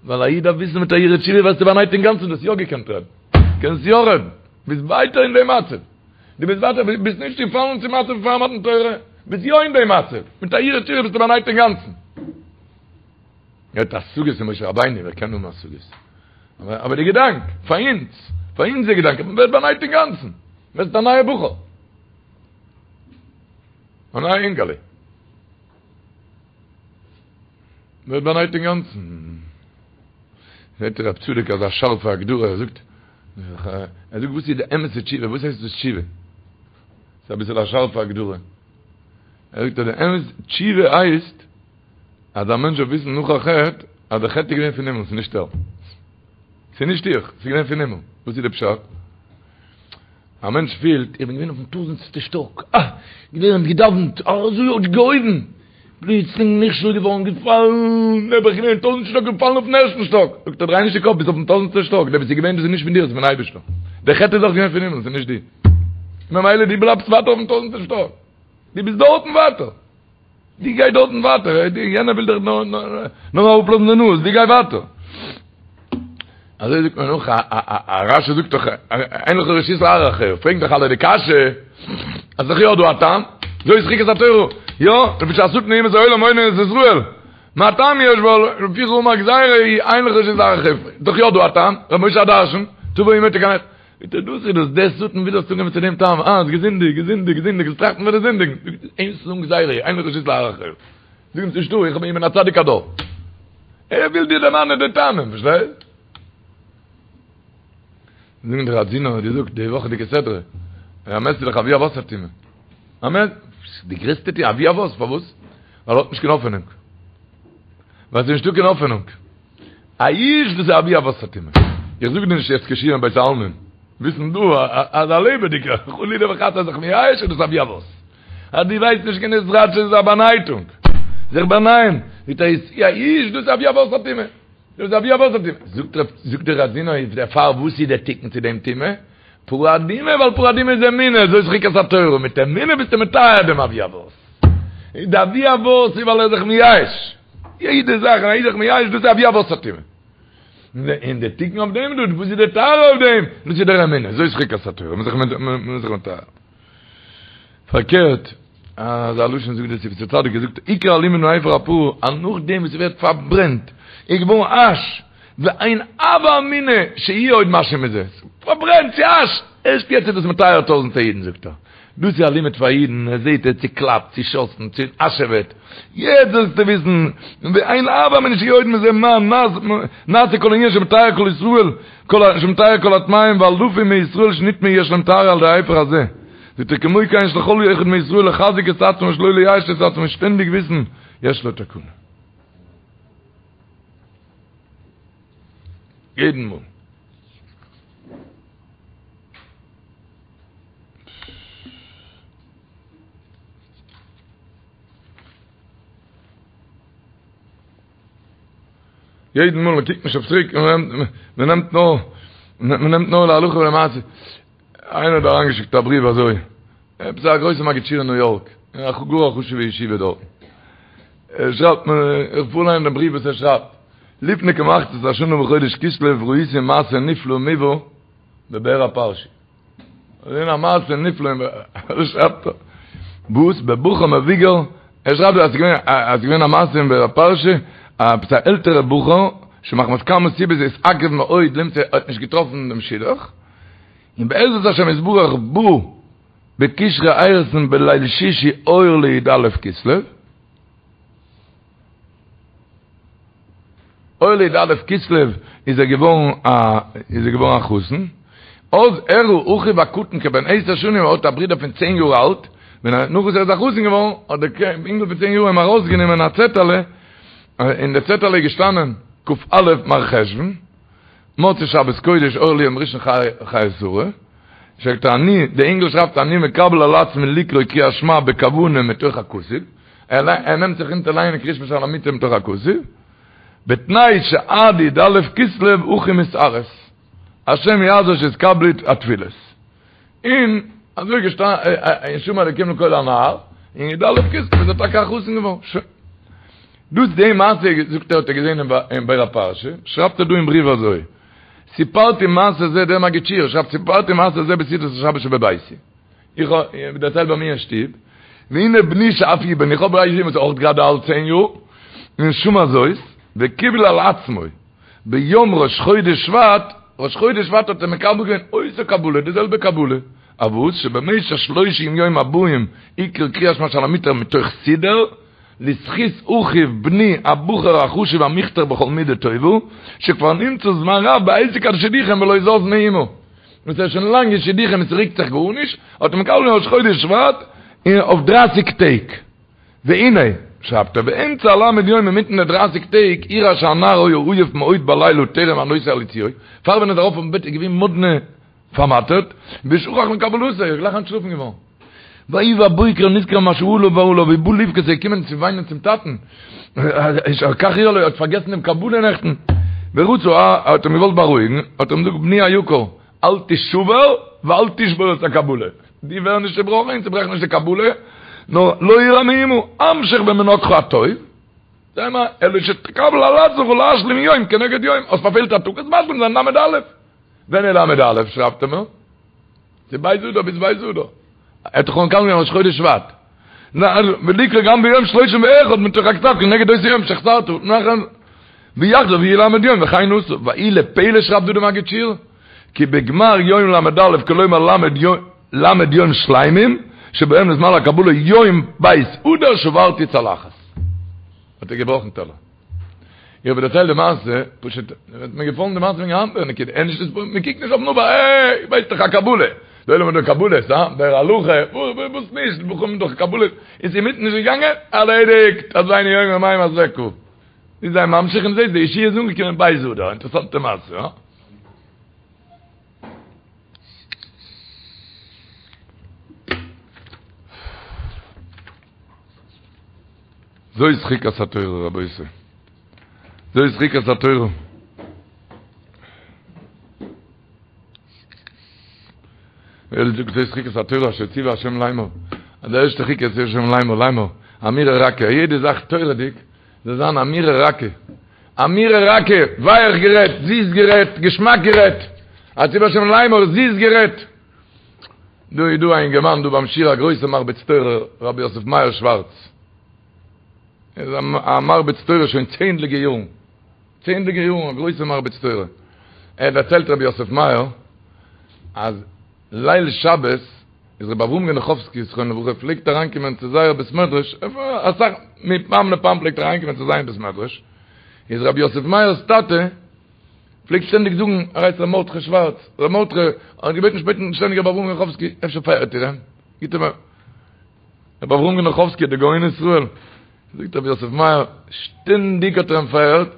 ווייל א איד דארף וויסן מיט א הרהור תשובה ווערסטו באנייט אינגאנצן, דו האסט יא געקענט רעדן, קענסט יא רעדן, ביסט ווייטער אין דעם מצב, דו ביסט ווייטער, ביסט נישט געפאלן צום מצב פאר מתן תורה, ביסט יא אין דעם מצב, מיט א הרהור תשובה ביסטו באנייט אינגאנצן. ער האט השגות אין משה רבינו, ווער קען האבן השגות? אבער די געדאנק, פאר אונז, פאר אונז די געדאנק, מען ווערט באנייט אינגאנצן, מען ווערט א נייע בחור, א נייע אינגעלע, מען ווערט באנייט אינגאנצן. זעט רב צדוק אזא שארפע הגדרה, ער זאגט, ער זאגט וואס איז די אמת'ע תשובה, וואס הייסט דאס תשובה? ס'איז אביסל א שארפע הגדרה. ער זאגט אז די אמת תשובה הייסט, אז א מענטש זאל וויסן נאך א חטא, אז די חטא איז געווען פון הימל, ס'איז נישט ער. ס'איז נישט איך, ס'איז געווען פון הימל. וואס איז די פשט? א מענטש פילט, איך בין געווען אויפן טויזענטסטע שטאק, אה! געלערנט, געדאווענט, אזוי האט געהויבן, פלוצלינג נכשל געווארן, געפאלן, נעבעך געווען טויזענט שטאק, געפאלן אויפן ערשטן שטאק. זאגט ער, דריי נישט די קאפ, ביסט אויפן טויזענטסטע שטאק, דער וואס איז געווען, דאס איז נישט פון דיר, דאס איז פון אייבערשטער. דער חטא איז אויך געווען פון הימל, ס'איז נישט דיר. ממילא דו בלייבסט ווייטער אויפן טויזענטסטע שטאק. דו ביסט דארטן ווייטער. דו גיי דארטן ווייטער, יענער וויל דיך נאר אראפלאזן די נאז, דו גיי ווייטער. אזוי זאגט מען נאך, א רש"י זאגט דאך, אין לך רשות להרהר אחריה, פרעגן דאך אלע די קשיא, אז ס'דאך יא דא א טעם, זאת חוקת התורה, יא, לפי שהשטן אומות העולם מונין את ישראל, מה טעם יש בה, לפיכך אמר גזירה היא, אין לך רשות להרהר אחריה, דאך יא דא א טעם, ר' משה הדרשן, תבוא אמו תקנח. זאגט ער דאס איז דאס, דער שטן וויל זאלסט אנקומען צו דעם טעם, אה, האסט געזינדיגט, געזינדיגט, געזינדיגט, זאלסט טראכטן פון די זינדיגן, זאגט ער אמר גזירה, אין לך רשות להרהר אחריה, זאג אים ס'נישטא, איך בין א צדיק הדור. ער וויל דיר דערמאנען די טעמים, פארשטייסט? זאגן די ראדזינער האט געזאגט די וואכעדיגע סדרה, א מת איז דאך אבי אבות הטומאה. א מת, די גרעסטע טומאה, אבי אבות, פארוואס? ווייל ער האט נישט קיין האפענונג. ווייל ס'איז נישטא קיין האפענונג. א איש דאס איז אבי אבות הטומאה. איך זאג דיר נישט יעצט קיין שיעור אין בית העלמין. וויסן דא אז א לעבעדיגער חלילה וחס אז זיך מייאש איז דאס אבי אבות. אז דו ווייסט נישט קיין התחדשות איז א באנייטונג, זיך באנייען, מיט א יאוש, דאס איז אבי אבות הטומאה, דאס איז אבי אבות הטומאה, זאגט רב, זאגט דער ראדזינער איז דערפאר וואס איז דער תיקון צו דעם טומאה? פרה אדומה, ווייל פרה אדומה איז אמונה, זאת חוקת התורה, מיט אמונה ביסטו מטהר דעם אבי אבות, די אבי אבות איז ווייל ער איז זיך מייאש, יעדע זאך ווען א איד איז זיך מייאש דאס איז אבי אבות הטומאה. און די תיקון אויף דעם דא, וואס איז די טהרה אויף דעם? דאס איז דער אמונה, זאת חוקת התורה, מ'איז זיך מטהר. פארקערט, אזא לשון זאגט דער שפתי צדיק, ער זאגט, עיקר הלימוד מאפר הפרה, אז נאכדעם וואס ס'ווערט פארברענט, איז געווארן אש, ואין הוה אמינא שיהיה עוד משהו מזה, פארברענט צו אש, ערשט יעצט איז דאס מטהר טויזענטער אידן זאגט ער. דאס איז א לימוד פאר אידן, ער זעט ער צוקלאפט, צושאסן, צואשעוועט, יעצט זאלסטו וויסן, ואין הוה אמינא שיהיה עוד מזה מה נעשה כל העניין שמטהר כל ישראל, שמטהר כל הטמאים ואלפים מישראל שנטמאו יש להם טהרה על ידי האפר הזה. זאגט ער כמו כן יש לכל אחד מישראל לחזק את עצמו שלא לייאש את עצמו שטענדיג וויסן יש לו תקנה. יעדן מאל. יעדן מאל מען קוקט נישט אויף צוריק, מען נעמט נאר, מען נעמט נאר להלכה ולמעשה. איינער האט אריינגעשיקט א בריוו אזוי, עפעס א גרויסע מגיד שיעור אין ניו יארק, אין א גאר א חשוב'ע ישיבה דארטן. ער שרייבט מיר, איך פארליין דעם בריוו וואס ער שרייבט, לפני כמחצית השנה בחודש כסלו ראיתי מעשה נפלא ומובהר בבאר הפרשי. געזען א מעשה נפלא אין ער שרייבט דא וואס בבחור מבוגר ער שרייבט דא אז ס'געווען אז ס'געווען א מעשה אין באר הפרשי עפעס א עלטערע בחור שמחמת כמה סיבות התעכב מאוד למצוא האט נישט געטראפן דעם שידוך און בעזרת השם יתברך בא בקשרי אירוסין בליל שישי אור לי"א כסלו אור לי"א כסלו איז ער געווארן א איז ער געווארן א חתן, אז הראה אחיו הקטן כבן עשר שנים ער האט א ברודער פון צען יאר אלט, ווען ער נאך וואס ער איז א חתן געווארן האט דער אינגל פון צען יאר אים ארויסגענומען א צעטעלע, אין די צעטעלע איז געשטאנען כ"א מרחשוון, מוצאי שבת קודש אור ליום ראשון חיי שרה, שרייבט ער אני, דער אינגל שרייבט אני מקבל על עצמי לקרוא קריאת שמע בכוונה מתוך הכתוב, ער נעמט זיך אונטער לייענען קריאת שמע שעל המיטה מתוך הכתוב, בתנאי שעד י"א כסלו אחי מתארס, השם יעזור שיתקבלו התפילות. און אזוי געשטאנען, און שמע אלוקים לקול הנער, און י"א כסלו איז ער טאקע א חתן געווארן. שוין. דאס די מעשה זאגט ער האט ער געזען אין באר הפרשה, שרייבט ער דא אין בריוו אזוי, סיפרתי מעשה זה דער מגיד שיעור שרייבט סיפרתי מעשה זה בסעודת השבת שבביתי. איך האב דערציילט ביי מיר אין שטוב, והנה בני שאף הוא בן, איך האב א זון וואס איז אויך גראדע אלט צען יאר, און שמע זאת, וקיבל על עצמו, ביום ראש חודש שבט, ראש חודש שבט האט ער מקבל געווען אותה קבלה, די זעלבע קבלה, אויף וואס שבמשך שלושים יום הבאים יקרא קריאת שמע שעל המיטה מתוך סידור, לזכות אחיו בני הבחור החשוב המוכתר בכל מידה טובה, שכבר נמצא זמן רב בעסק השידוכים ולא זז מאומה. וואס ער איז שוין לאנג אין שידוכים און ס'רוקט זיך גארנישט, האט ער מקבל געווען ראש חודש שבט און אויף דרייסיג טעג. והנה, שרייבט ער, באמצע הל' יום אינמיטן די דרייסיג טעג, אירע שהנער היה עייף מאוד בלילה טרם עלותו על יצועו, פאר ווען ער איז ארויף אויפן בעט איז געווען מאדנע פארמאטערט, ושכח מקבלתו, ער איז גלייך אנטשלאפן געווארן. ויהי בבוקר נזכר מה שעלה עליו ובא לבכות איז געקומען צו וויינען צום טאטן, כך אירע לו, ער האט פארגעסן דעם קבלה נעכטן, ורצה, האט אים געוואלט בארואיגן, האט ער אים געזאגט בני היקר, אל תשבר ואל תשבור את הקבלה, דו ווער נישט צעבראכן און צעברעך נישט די קבלה, נאר לא אירע מאומה, המשך במנהגך הטוב, זיי מיר, אלא שתקבל על עצמך להשלים יום כנגד יום, האסט פארפעלט א טאג, וועסט משלים זיין ל"א. ווען איז ל"א שרייבט ער מיר? ס'איז ב' אדר ביז ב' אדר. ער האט דאך מקבל געווען ראש חודש שבט. ולקרוא גם ביום שלושים ואחד מתוך הכתב כנגד אותו יום שחסרת. נאכן ויחזור ויהי ל' יום וכן עשה. ויהי לפלא שרייבט דא די מגיד שיעור, כי בגמר יום ל"א כלומר ל' יום שלימים שבהם נזמן לקבלה יום ב' אדר שברתי צלחת. האט ער געבראכן טעלער. איך האב דערציילט די מעשה, פשוט, האט מיר געפאלן די מעשה וועגן האנט נקודה, ער נישט מען קוקט נישט אויפן עבר, אה, ווייסט דאך א קבלה, די עולם האט דאך קבלות, הא, דער הלכה, וואס נישט, בחורים דאך קבלות, איז אינמיטן נישט געגאנגען, ארלעדיגט, האזינו יום יומיים אזעקה. איז זיי ממשיך און זעהט די ישועה איז אנגעקומען ב' אדר, אינטערעסאנטע מעשה, הא? זאת חוקת התורה רבותי. זאת חוקת התורה. ווער זאגט זאת חוקת התורה אשר ציווה השם לאמור. אז די ערשטע חוקה איז השם לאמור לאמור. אמירה רכה, יעדע זאך תורה'דיג זאל זיין אמירה רכה. אמירה רכה, ווייך גערעדט, זיס גערעדט, געשמאק גערעדט. אשר ציווה השם לאמור, זיס גערעדט. דא איז דא א אינגערמאן דא ביים שיעור א גרויסע מרביץ תורה רבי יוסף מאיר שווארץ. ער איז א מרביץ תורה שוין צענדליגע יארן. צענדליגע יארן א גרויסע מרביץ תורה. ער דערציילט רבי יוסף מאיר אז ליל שבת איז רבי אברהם גענעכאווסקי זכרונו לברכה פלעגט אריינקומען צו זייער בית מדרש, אסאך מפעם לפעם פלעגט ער אריינקומען צו זיין בית מדרש, איז רבי יוסף מאיר'ס טאטע פלעגט שטענדיג זאגן, ער הייסט ר' מרדכי שווארץ, ר' מרדכי האט געבעטן שפעטן שטענדיג רבי אברהם גענעכאווסקי אפשר פארהערט איר אים, גיט אים א. רבי אברהם גענעכאווסקי דער גאון ישראל, זאגט רבי יוסף מאיר, שטענדיג האט ער אים פארהערט,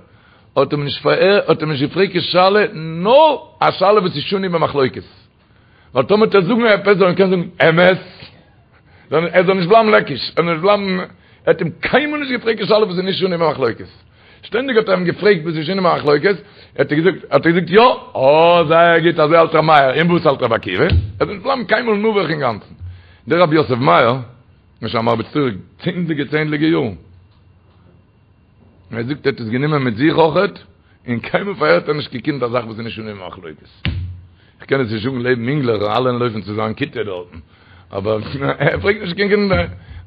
האט אים נישט פארהערט, האט אים נישט געפרעגט קיין שאלה, נאר א שאלה וואס איז שנוי במחלוקת. ווייל טאמער וועט ער זאגן עפעס זאל ער קענען זאגן אמת, ער זאל נישט בלייבן לעקיש, ער זאל נישט בלייבן, ער האט אים קיינמאל נישט געפרעגט קיין שאלה וואס איז נישט שנוי במחלוקת. שטענדיג האט ער אים געפרעגט וואס איז שנוי במחלוקת, האט ער געזאגט, האט ער געזאגט יא, אה זייער גוט, אזוי האלט ר' מאיר, און וואס האלט רבי עקיבא? ער זאל נישט בלייבן קיינמאל נבוך אינגאנצן. דער רבי יוסף מאיר, איז שוין א מרביץ תורה צענדליגע צענדליגע יארן. ער זאגט ער האט עס גענומען מיט זיך אויכעט, און קיינמאל פארהערט ער נישט קיין קינד א זאך וואס איז נישט שנוי במחלוקת. איך קען עס נישט זאגן לעבן אינגלעך, אלע לויפן צו זיין כיתה דארטן, אבער ער פרעגט נישט קיין קינד.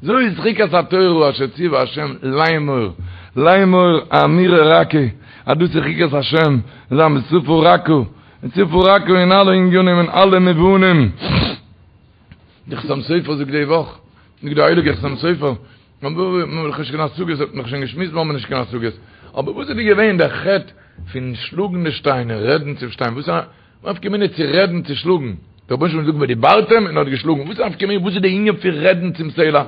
זאת חוקת התורה אשר ציווה השם לאמור, לאמור אמירה רכה, אז דאס איז חוקת השם, זיין בשפה רכה, בשפה רכה אין אלע ענינים אין אלע מובנים. די חתם סופר זאגט די וואך, זאגט די הייליגע חתם סופר, מ'האט דאך נישט קיין השגות, האט מען דאך שוין געשמועסט מ'האט נישט קיין השגות, אבער וואס איז דא געווען דער חטא פון שלאגן די שטיין און רעדן צום שטיין, וואס איז א נפקא מינה צו רעדן צו שלאגן, דער רבונו של עולם האט געזאגט ודיברתם און ער האט געשלאגן, וואס איז א נפקא מינה, וואס איז די ענין פון רעדן צום סלע?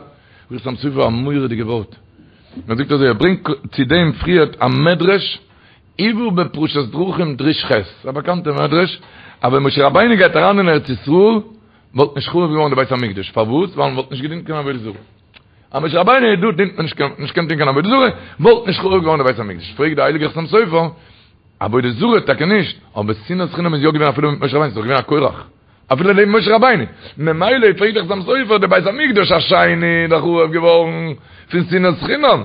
זאגט חתם סופר א מורא'דיגע ווארט, ער זאגט אזוי, ער ברענגט צו דעם פריערט א מדרש, הובא בפרשת דרכים דרוש ח', א באקאנטע מדרש, אז ווען משה רבינו גייט אריין אין ארץ ישראל, וואלט נישט חרוב געווארן די בית המקדש, פארוואס? ווייל מען וואלט נישט געדינט קיין עבודה זרה. אז משה רבינו איז דא דינט מען נישט קיין נישט קען טון קיין עבודה זרה, וואלט נישט חרוב געווארן די בית המקדש. פרעגט די הייליגע חתם סופר, עבודה זרה טאקע נישט, אבער שנאת חינם איז יא געווען אפילו מיט משה רבינו, ס'איז דאך געווען א קורח אפילו לעבן משה רבינו, ממילא פרעגט די חתם סופר, די בית המקדש השני איז דאך חרוב געווארן פון שנאת חינם.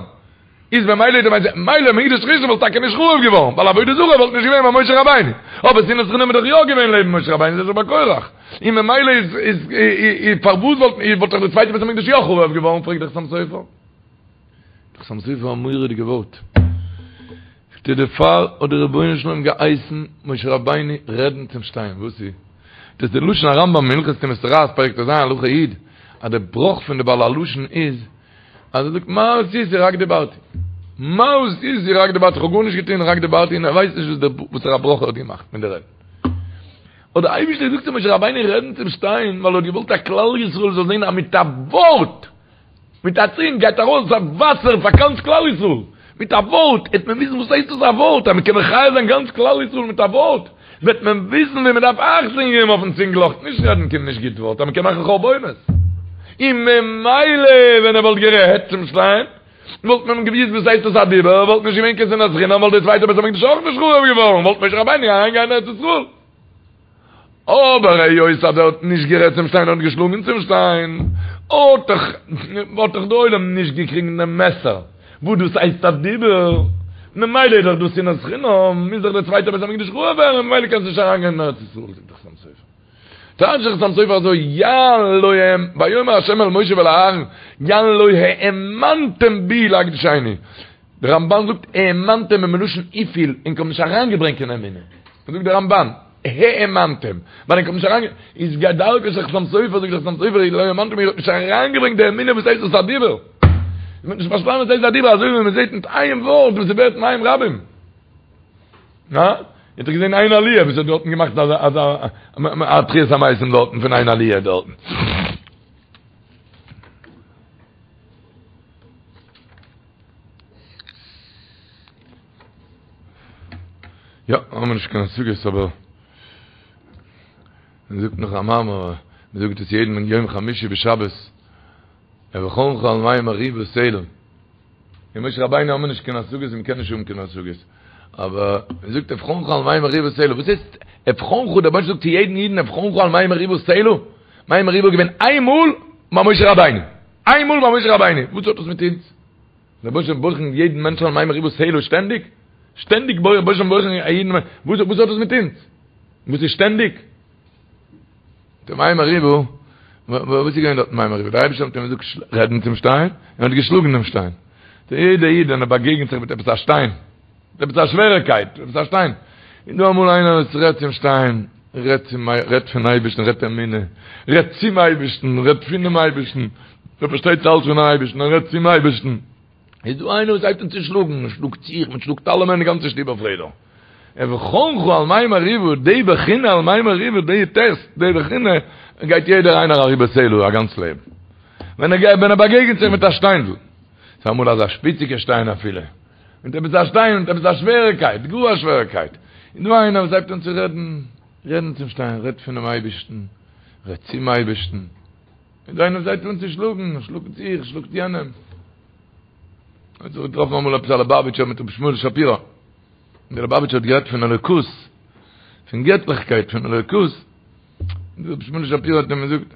איז ממילא די בית מילא מקדש ראשון וואלט טאקע נישט חרוב געווארן ווייל עבודה זרה וואלט נישט געווען ביי משה רבינו אבער שנאת חינם איז דאך יא געווען לעבן משה רבינו איז עס ביי קורח און ממילא איז איז איז פארוואס וואלט וואלט דאך די צווייטע בית המקדש יא חרוב געווארן פרעגט דער חתם סופר דער חתם סופר א מורא'דיגע ווארט זאגט ער דערפאר האט דער רבונו של עולם געהייסן משה רבינו רעדן צום שטיין וואס איז דאס די לשון הרמב"ם אין הלכות טומאת צרעת פרק ט"ז הלכה י' אז דער בראך פון די בעל הלשון איז אז ער זאגט מה עשיתי רק דיברתי. מה עשיתי רק דיברתי, איך האב גארנישט געטון רק דיברתי און ער ווייסט נישט וואס דער וואסערע ברכה ער האט געמאכט מיט די רעדן. האט דער אייבערשטער געזאגט צו משה רבינו רעדן צום שטיין ווייל ער האט געוואלט אז כלל ישראל זאל זען אז מיט א ווארט, מיט א צונג גייט ארויס א וואסער פאר גאנץ כלל ישראל. מיט א ווארט העט מען וויסן וואס הייסט דאס א ווארט, אז מען קען מחיה זיין גאנץ כלל ישראל מיט א ווארט, וועט מען וויסן ווי מען דארף אכטונג געבן אויפן צינגל נישט רעדן קיין נישט גוט ווארט אז מען קען מאכן חורבנות. און ממילא ווען ער וואלט גערעדט צום שטיין וואלט מען געוויסט וואס הייסט דאס א דיבור, וואלט נישט געווען קיין שנאת חינם וואלט די צווייטע בית המקדש אויך נישט חרוב געווארן, וואלט משה רבינו אריין גיין אין ארץ ישראל. אבער היות אז ער האט נישט גערעדט צום שטיין און האט געשלאגן צום שטיין, האט דאך האט דאך די עולם נישט געקריגן דעם מסר וואס דאס הייסט א דיבור, ממילא איז דאך דאס שנאת חינם, מוז דאך דער צווייטער בית המקדש חרוב ווערן, ממילא קענסטו נישט אריינגיין אין ארץ ישראל, זאגט דער חתם סופר. טייטשט דער חתם סופר אזוי, יען לא האמ, ויאמר ה' אל משה ואל אהרן, יען לא האמנתם בי להקדישני. דער רמבן זאגט האמנתם איז מלשון הפעיל ענק האבן נישט אריינגעברענגט קיין אמונה. זאגט דער רמבן, האמנתם, ווייל ענק האבן נישט אריינגע. איז כדרכו של חתם סופר, זאגט דער חתם סופר, לא האמנתם איר האט נישט אריינגעברענגט די אמונה וואס הייסט דאס א דיבור. איר האט נישט פארשטאנען וואס הייסט א דיבור, אזוי ווי מען זעט מיט איין ווארט וואס ס'ווערט מים רבים. הא? איר האט דאך געזען איין עליה וואס האט דארטן געמאכט אזא אזא א תחיית המתים דארטן פון איין עליה דארטן. יא, האבן מיר נישט קיין השגות אבער מען זאגט נאך א מאמר, מען זאגט עס יעדן יום חמישי בשבת, אבחנך על מי מריבה סלה. אין משה רבינו האבן מיר נישט קיין השגות און מ'קען נישט האבן קיין השגות. אבער מען זאגט אבחנך על מי מריבה סלה. וואס הייסט אבחנך? דער רבונו של עולם זאגט צו יעדן אידן אבחנך על מי מריבה סלה. מי מריבה איז געווען איין מאל ביי משה רבינו. איין מאל ביי משה רבינו. וואס האט דאס מיט אונז? דער רבונו של עולם בוחן יעדן מענטש על מי מריבה סלה שטענדיג? שטענדיג רבונו של עולם בוחן א אידן. וואס האט דאס מיט אונז? וואס איז שטענדיג? די מי מריבה, וואס איז געווען דארט מי מריבה? דער אייבערשטער האט אים געזאגט רעדן צום שטיין, און ער האט געשלאגן דעם שטיין. דער יעדער איד ווען ער באגעגנט זיך מיט עפעס א שטיין, מיט עפעס א שוועריקייט, עפעס א שטיין, איז דא אמאל איינער וואס רעדט צום שטיין, רעדט צום, רעדט פון אייבערשטן, רעדט אמונה, רעדט צום אייבערשטן, רעדט פונעם אייבערשטן, ער פארשטייט אלץ פונעם אייבערשטן, ער רעדט צום אייבערשטן. איז דא איינער וואס הייבט אן צו שלאגן, מען שלאגט זיך, מען שלאגט אלעמען, די גאנצע שטוב אויף רעדער. אבחנך על מי מריבה, די בחינה על מי מריבה, די טעסט, די בחינה, גייט יעדער איינער אריבער סלה א גאנץ לעבן. ווען ער גייט, ווען ער באגעגנט זיך מיט א שטיינדל, ס'איז אמאל אזא שפיציגע שטיין אפילו, מיט עפעס א שטיין, מיט עפעס א שוועריקייט, גאר א שוועריקייט, איז דא איינער וואס הייבט אן צו רעדן, רעדן צום שטיין, רעדט פונעם אייבערשטן, רעדט צום אייבערשטן. און דא איינער וואס הייבט אן צו שלאגן, שלאגט זיך, שלאגט יענעם. האט זיך געטראפן אמאל עפעס א ליובאוויטשער מיט רבי שמואל שפירא. און דער ליובאוויטשער האט גערעדט פון אלוקות, פון געטליכקייט, פון אלוקות. און דער רבי שמואל שפירא האט אים געזאגט,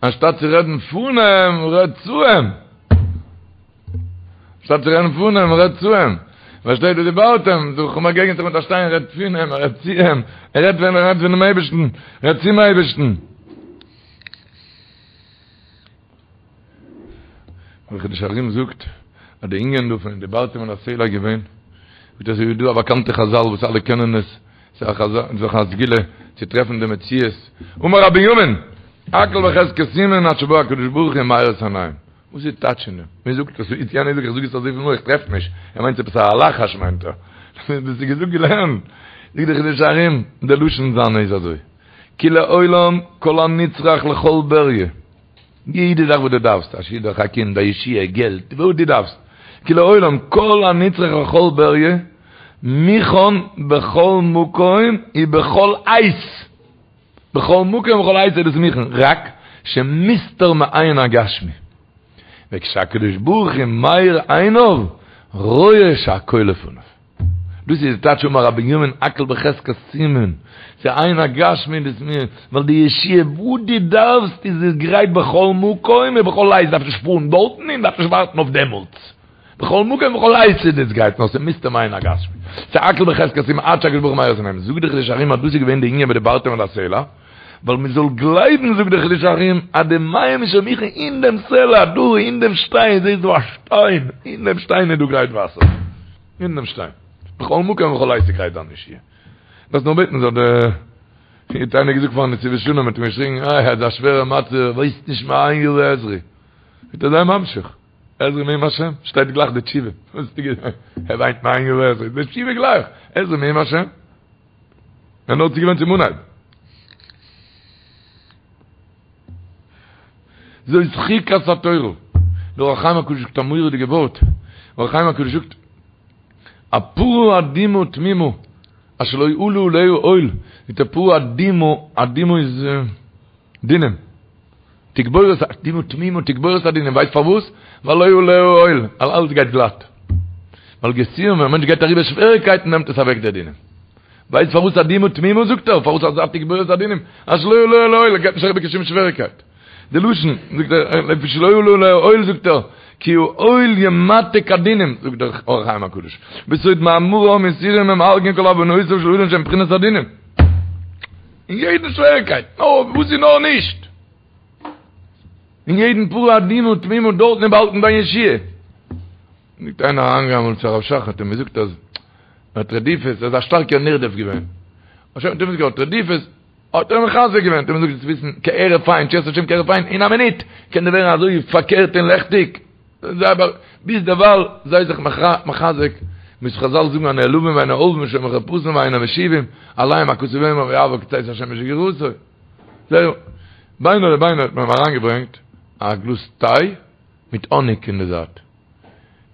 אנשטאט צו רעדן פון אים, רעד צו אים. אנשטאט צו רעדן פון אים, רעד צו אים. פארשטייט ודברתם, דו באגעגנסט זיך מיט א שטיין, רעד פון אים, רעד צו אים. ער רעדט ווען ער רעדט פונעם אייבערשטן, רעד צום אייבערשטן. דער חידושי הרי"ם זאגט אז די ענין דא פון ודברתם אל הסלע איז געווען ווי דאס איז דא א באקאנטע חזל וואס אלע קענען עס ס'איז א חזל ס'איז א סגולה צו טרעפן די מציאות אמר רבי בנימין הכל בחזקת סומין עד שבא הקדוש ברוך הוא ומאיר את עיניהם וואס איז טייטש אין דעם? מען זאגט עס איז יענער זאגט איך זאג עס אזויפיל מאל איך טרעף נישט ער מיינט עפעס א לחש מיינט ער דאס איז געזאגט געלערנט זאגט דער חידושי הרי"ם די לשון זיינע איז אזוי כי לעולם כל הנצרך לכל בריה, יעדע זאך וואס דו דארפסט, א שידוך, א קינד, א ישועה, געלט, וואס דו דארפסט, כי לעולם כל הנצרך לכל בריה, מוכן בכל מקום ובכל עת, בכל מקום ובכל עת איז דאס מוכן, רק שמוסתר מעין הגשמי, וכשהקדוש ברוך הוא מאיר עיניו, רואה שהכל לפניו. דאס איז די טייטש אמר רבי בנימין הכל בחזקת סומין, ס'איז עין הגשמי דאס מיר, ווייל די ישועה וואס דו דארפסט איז עס גרייט בכל מקום ובכל עת, דארפסט נישט פארן דארטן און דארפסט נישט ווארטן אויף דעמאלטס, בכל מקום ובכל עת איז דאס גרייט, נאר ס'איז מוסתר מעין הגשמי, ס'איז הכל בחזקת סומין עד שהקדוש ברוך הוא מאיר את עיניהם, זאגט די חידושי הרי"ם אז דאס איז געווען די ענין ודברתם אל הסלע, ווייל מען זאל גלייבן זאגט די חידושי הרי"ם אז די מים איז שוין מוכן אין דעם סלע דא אין דעם שטיין, זעסט דא א שטיין, אין דעם שטיין איז דא גרייט וואסער. אין דעם שטיין. בכל מקום ובכל עת איז גרייט דיין ישועה. דארפסט נאר בעטן זאל די האט איינער געזאגט פארן נתיבות שלום האט אים געשריגן איי אזא שווערע מצב ווייסט נישט מאין יבא עזרי. זאגט ער זיי ממשיך. עזרי מעם השם. שטייט גלייך די תשובה. וואס האסטו געזאגט? ער וויינט מאין יבא עזרי. די תשובה גלייך. עזרי מעם השם. ער נאר צוגעוואוינט צום אנהייב. זאת חוקת התורה. דער אור החיים הקדוש זאגט א מורא'דיגע ווארט. אור החיים הקדוש זאגט, א פרה אדומה תמימה, אשר לא עלה עליה עול, זאגט ער פרה אדומה, אדומה איז דינים. תגבורת, אדומה תמימה, תגבורת הדינים, ווייסט פארוואס? ווייל לא עלה עליה עול, ווייל אלעס גייט גלאט. ווייל יסורים, ווען א מענטש גייט אריבער שוועריגקייטן נעמט עס אוועק די דינים. ווייסט פארוואס אדומה תמימה זאגט ער, פארוואס אזא תגבורת הדינים, אשר לא עלה עליה עול, גייט נישט אריבער קיין שום שוועריגקייט. די לשון, זאגט ער, לפי שלא עלה עליה עול זאגט ער, כי העול ימתק הדינים, זאגט דער אור החיים הקדוש, בסוד מאמרם יסורים הם הרגין כל עוונותיו של אדם שהם בחינת הדינים. אין יעדן שוועריגקייט, נאר וואס איז נאר נישט. אין יעדן פרה אדומה תמימה דארטן איז באהאלטן דיין ישועה. זאגט איינער אריינגעגאנגען אמאל צו הרב שך האט אים געזאגט אז ער האט רדיפות, ער איז א שטארקער נרדף געווען. האט אים געזאגט רדיפות, האט ער אים מחזק געווען, האט אים געזאגט זאלסט וויסן כהרף עין, תשועת השם כהרף עין, אין א מינוט קען דיר ווערן אזוי פארקערט און לעכטיג, ביז דערווייל זיי זיך מחזק, ווי חזל זאגן הנעלבים ואינם עולבים שומעים חרפתן ואינם משיבים, עליהם הכתוב אומר ויעבור כצאת השמש בגבורתו. זהו, ביינאר לביינאר האט מען אים אריינגעברענגט א גלאז טיי מיט האניג אין די זייט.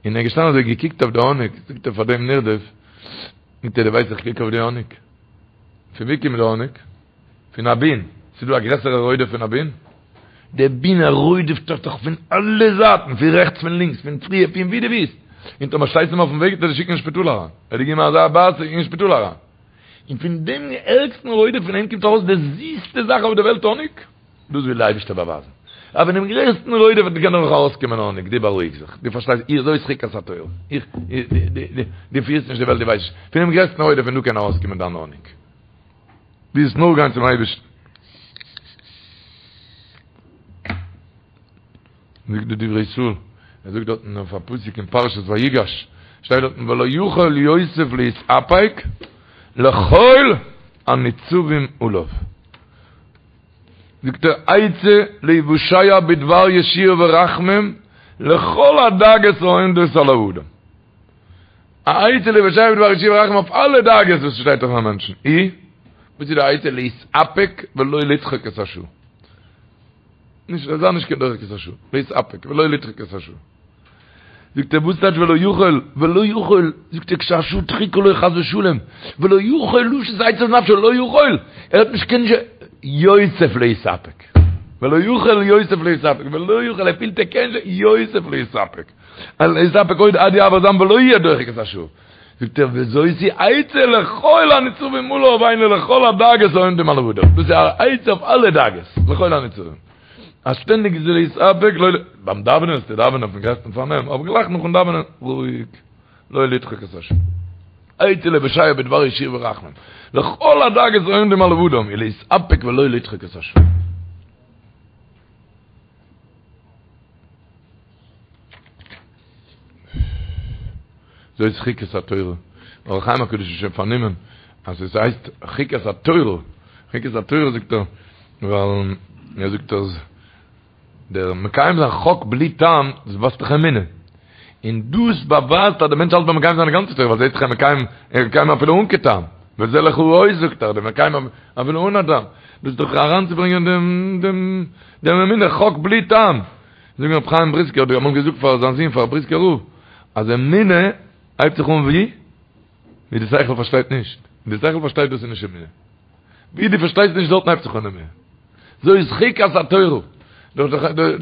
און ער איז געשטאנען אזוי געקוקט אויף די האניג, זאגט ער פאר דעם נרדף, זאגט ער דו ווייסט איך קוק אויף די האניג? פון ווי קומט די האניג? פון א בין, ס'איז דא א גרעסערע רודף פון א בין? דער בין ער רודפ'ט דיך דאך פון אלע זייטן, פון רעכטס פון לינקס, פון פריער, פון ווי דו ווילסט. און טאמער שטייסט אים אויפן וועג וועט ער דיר שיקן אין שפיטאל אריין, ער האט דיר געגעבן אזא בייס אין שפיטאל אריין. און פון דעם ערגסטן רודף פון אים קומט ארויס די זיסטע זאך אויף די וועלט האניג, דאס וויל די אייבערשטער באווייזן, אז פון דעם גרעסטן רודף קען נאך ארויסקומען האניג, דו בארואיג זיך, דו פארשטייסט, איך זאת חוקת התורה, איך, דו פירסט נישט די וועלט, דו ווייסט נישט, פון דעם גרעסטן רודף פון דא קען ארויסקומען דיין האניג, דו זאלסט נאר גיין צום אייבערשטן. זאגט די דברי ישראל, ער זאגט דארטן אויף א פסוק אין פרשת ויגש, שטייט דארטן ולא יכול יוסף להתאפק לכל הניצבים עליו. זאגט ער עצה להיוושע בדבר ישועה ורחמים לכל הדאגות העומדות על האדם. א עצה להיוושע בדבר ישועה ורחמים אויף אלע דאגות וואס שטייט אויף א מענטשן. אי, וואס איז די עצה? להתאפק ולא לדחוק את השעה. נישט זיי נישט קיין דוחק את השעה, להתאפק ולא לדחוק את השעה. זאגט ער וואס טייטש ולא יכול, ולא יכול, זאגט ער כשהשעה דחוקה לו חס ושלום, ולא יכול לשית עצת נפשו, לא יכול, ער האט נישט קיין יוסף להתאפק, ולא יכול יוסף להתאפק, ולא יכול, ער פילט ער קען נישט, יוסף להתאפק, להתאפק עוד עד יעבור זעם ולא יהיה דוחק את השעה. זאגט ער וזאת היא עצה לכל הניצבים עליו היינו לכל הדאגות העומדים על האדם, דאס איז א עצה אויף אלע דאגות, לכל הניצבים, אז שטענדיג איז להתאפק, לא ל, ביים דאווענען זאלסטו דאווענען אויפן גרעסטן פארנעם, אבער גלייך נאכן דאווענען, רואיג, לא לדחוק את השעה. עצה להיוושע בדבר ישועה ורחמים, לכל הדאגות העומדים על האדם, היא להתאפק ולא לדחוק את השעה. זאת חוקת התורה. אור החיים הקדוש איז שוין פארנומען אז עס הייסט חוקת התורה. חוקת התורה זאגט ער, ווייל ער זאגט אז דער מקיים זיין חוק בלי טעם, דאס ווייזט דאך אמונה. און דאס באווייזט אז דער מענטש האלט ביים מקיים זיין די גאנצע תורה, ווייל זעהט זיך ער מקיים, ער מקיים אפילו אן קיין טעם. וזה לך האות זאגט ער, דער מקיים אפילו אן א טעם. דאס איז דאך אריינצוברענגען דעם דעם דעם אמונה, חוק בלי טעם. זאגן רבי חיים בריסקער האט אמאל געזאגט פאר זיין זון פאר בריסקער רב אז אמונה הייבט זיך אן ווי ווי די שכל פארשטייט נישט די שכל פארשטייט דאס איז נישט אמונה ווי דו פארשטייסט נישט דארטן הייבט זיך אן אמונה זאת חוקת התורה דאס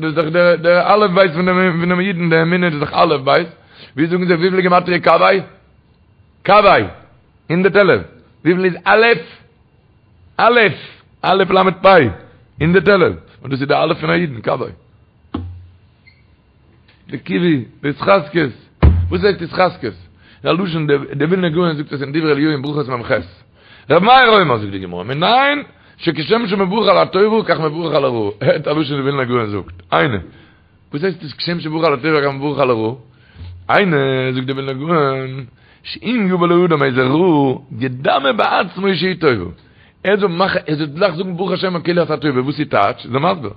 איז דאך דער דער אלף בית פון דעם פון דעם אידן די אמונה איז דאך אלף בית ווי זאגן זיי וויפיל גימטריא קוה קוה 111 וויפיל איז אלף אלף אלף למד פא 111 און דאס איז די אלף פון א אידן קוה די קיווי, די התחזקות. וואס הייסט התחזקות? א לשון די ווילנער גאון זאגט עס אין דברי אליהו אין ברכות מ"ח. ר' מאיר אומר זאגט די גמרא, מנין שכשם שמברך על הטובה כך מברך על הרעה. הערט א לשון די ווילנער גאון זאגט. היינו. וואס הייסט עס כשם שמברך על הטובה כך מברך על הרעה? היינו, זאגט די ווילנער גאון, שאם יבא לאדם איזה רעה, ידמה בעצמו שהיא טובה. ער זאל מאכן, ער זאל גלייך זאגן ברוך השם כאילו ס'איז א טובה, וואס איז טייטש? איז ער מסביר.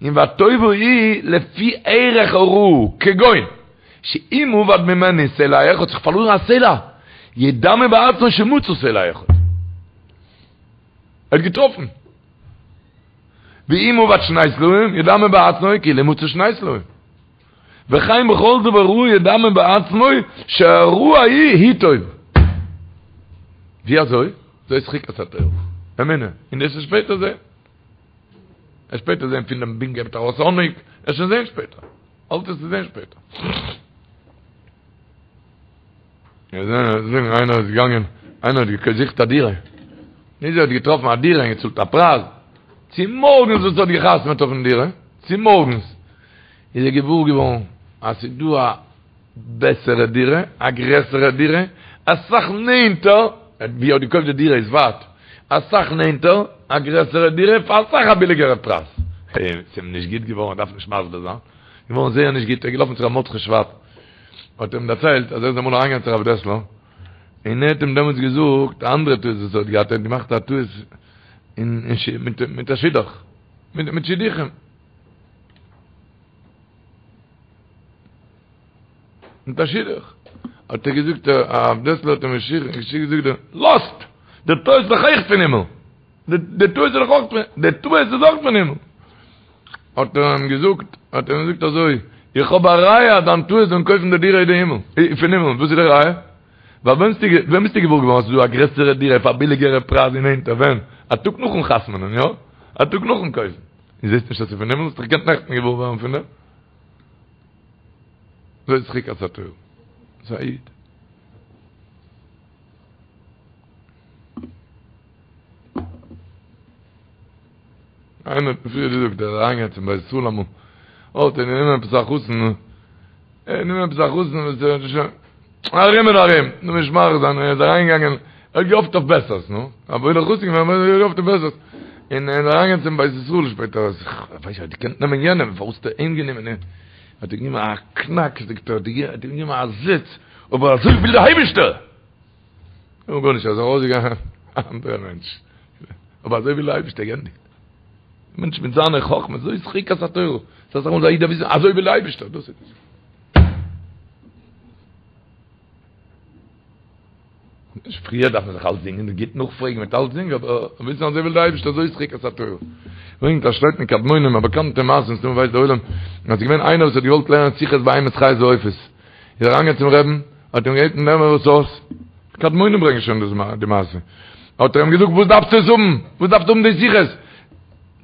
און והטובה היא לפי ערך הרעה, כגון, שאם אבד ממנו סלע אחד, זיך פארלוירן א סלע, ידמה בעצמו שמצא סלע אחד. ער האט געטראפן. ואם אבד שני סלעים, ידמה בעצמו כאילו מצא שני סלעים. וכן בכל דבר רע ידמה בעצמו שהרעה ההיא היא טובה. ווי אזוי? זאת חוקת התורה. אמונה. און דאס איז שפעטער זעהן. עס שפעטער זעהן פון דעם בין געבט ארויס האניג, עס שוין זעהן שפעטער. אלץ איז צו זעהן שפעטער. מיר זעהן זאגן איינער איז געגאנגען, איינער האט געזוכט א דירה. נישט ער האט געטראפן א דירה און געצאלט א פרייז. צו מארגנס וואס ער האט געחתמעט אויפן דירה, צו מארגנס איז ער געוואר געווארן אז ס'איז דא א בעסערע דירה, א גרעסערע דירה, אסאך נענטער, ווי ער האט געקויפט די דירה איז ווייט, אסאך נענטער, א גרעסערע דירה פאר אסאך א ביליגערע פרייז. ס'איז אים נישט גוט געווארן, ער דארף נישט מסביר זיין, געווארן זייער נישט גוט, ער איז געלאפן צו ר' מרדכי שוואב, האט אים דערציילט אז ער איז אמאל אריינגעגאנגען צו הרב דעסלער, און ער האט אים דעמאלטס געזאגט א אנדערע טעות וואס ער האט געהאט, ער האט געמאכט א טעות אין מיט א שידוך, מיט שידוכים. מיט א שידוך. האט ער געזאגט, הרב דעסלער האט אים געזאגט, לאזט! דער טעות איז דאך אויך פון הימל! דער טעות איז דאך אויך פון, דער טעות איז אויך פון הימל! האט ער אים געזאגט, האט ער אים געזאגט אזוי, איך האב א ראיה אז דיין טעות פון קויפן די דירה איז די הימל, פון הימל, וואס איז די ראיה? ווייל ווען ביסטו, ווען ביסטו געוואר געווארן אז ס'איז דא א גרעסערע דירה פאר א ביליגערע פרייז און נענטער, ווען? א טאג נאכן חתמ'נען, יא? א טאג נאכן קויפן. און זעסט נישט אז ס'איז פון הימל? האסט דאך געקענט נעכטן געוואר ווערן פון דעם. זאת חוקת התורה. ס'איז א איד. איינער האט מיר פריער געזאגט ער איז אריינגעגאנגען צום בית ישראל אמאל, האט ער גענומען עפעס א חתן, ער האט גענומען עפעס א חתן וואס ער האט שוין ארום און ארום, נו נישט מאריך זיין, ער איז אריינגעגאנגען, ער האט געהאפט אויף בעסערס, נו, א וואוילער חתן געווען, אבער ער האט געהאפט אויף בעסערס, און ער איז אריינגעגאנגען צום בית ישראל שפעטער, אז איך ווייס נישט, האט געקענט נעמען יענעם, פארוואס האט ער אים גענומען, האט ער געגעבן א קנאק, זאגט ער, האט ער אים געגעבן א זעץ, אבער אזוי וויל דער אייבערשטער! נו גארנישט, ער איז ארויסגעגאנגען א אנדערע מענטש, אבער אזוי וויל דער אייבערשטער, געענדיגט. מענטש מיט זיינע חכמות, זאת חוקת התורה, ס'איז אסאך מאל א איד דארף וויסן, אזוי וויל דער אייבערשטער, דאס איז עס. נישט פריער דארף מען זיך אלצדינג און גוט נאכפרעגן מיט אלצדינג, אבער וויסן אזוי וויל דער אייבערשטער, זאת חוקת התורה. ברענגט א שטייט אין קדמונים, א באקאנטע מעשה, מסתמא ווייסט דער עולם, אז ס'איז געווען איינער וואס האט געוואלט לערנען שיחות בהמות חיות ועופות, איז ער אריינגעגאנגען צום רעבן, האט אים געבעטן לערן מיר עס אויס, קדמונים ברענגען שוין דאס די מעשה, האט ער אים געזאגט וואס דארפסטו עס האבן, וואס דארפסטו האבן די שיחות,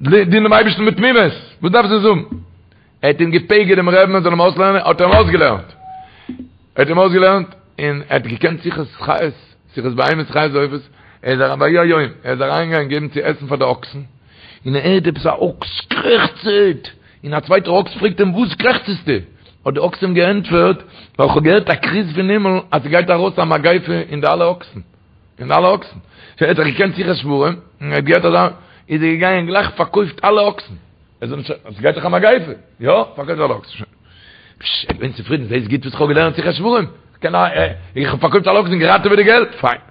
דין דעם אייבערשטן מיט תמימות, וואס דארפסטו עס האבן, ער האט אים געפגר'ט דעם רעבן ער זאל אים אויסלערנען, האט ער אים אויסגעלערנט, ער האט אים אויסגעלערנט, און ער האט געקענט שיחות חיות, שיחות בהמות חיות ועופות, ער איז אריין ויהי היום, ער איז אריינגעגאנגען געבן צו עסן פאר די אקסן, און ער הערט עפעס א אקס קרעכצעט, און א צווייטער אקס פרעגט אים וואס קרעכצסטו? האט די אקס אים געענטפערט, ווייל כ'האב געהערט א כרוז פון הימל אז ס'גייט ארויס א מגיפה אין די אלע אקסן, אין די אלע אקסן. שוין ער האט דאך געקענט שיחת שוורים, און ער האט געהערט אזא, איז ער געגאנגען גלייך פארקויפט אלע אקסן. ער זאל נישט, ס'גייט דאך א מגיפה, יא, פארקויפט אלע אקסן, שוין. פשש, ער איז געווען צופרידן, זעהסט גוט וואס כ'האב געלערנט שיחת שוורים, כ'קען א, איך האב פארקויפט אלע אקסן, געראטעוועט די געלט, פיין.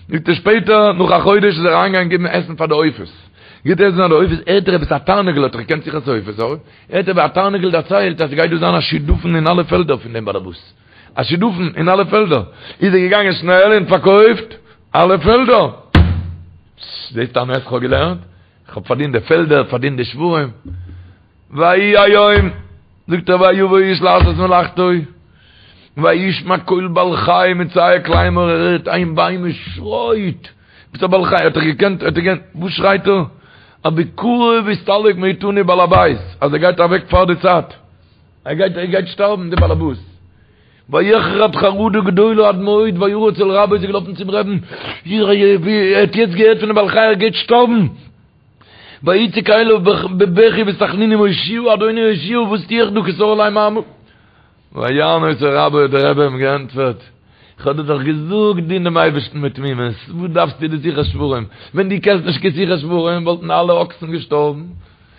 זאגט ער שפעטער, נאך א חודש איז ער אריינגעגאנגען געבן עסן פאר די עופות. גיבט עסן פאר די עופות, הערט ער עפעס א תרנגול האט ער געקענט שיחת עופות, אוי, הערט ער ווי א תרנגול דערציילט אז ס'גייט דא זיין א שדפון אין אלע פעלדער פון דעם באלעבאס. א שדפון אין אלע פעלדער. איז ער געגאנגען שנעל און פארקויפט אלע פעלדער. זעסט א נס כ'האב געלערנט? כ'האב פארדינט די פעלדער, פארדינט די שוורים. ויהי היום, זאגט ער ויבא איש לעשות מלאכתו, וישמע קול בעל חי מצעק לאמור, ער הערט איין בהמה שרייט, עפעס א בעל חי, האט ער געקענט, האט ער געקענט, וואס שרייט ער? אז בקרוב יסתלק מאיתנו בעל הבית, אז ער גייט אוועק פאר די צייט, ער גייט, ער גייט שטארבן די בעל הבית. ויחרד חרדה גדולה עד מאוד וירץ אל רבו איז ער געלאפן צום רעבן, ער האט יעצט געהערט פונעם בעל חי ער גייט שטארבן, ויצעק אליו בבכי ובתחנונים הושיעה אדוני הושיעה וואס טו איך דא כי סר עלי מר. ויען אותו רבו האט דער רבי אים געענטפערט, איך האב דיר דאך געזאגט דין דעם אייבערשטן מיט תמימות, וואס דארפסטו די שיחת שוורים, ווען דו קענסט נישט קיין שיחת שוורים וואלטן אלע אקסן געשטארבן,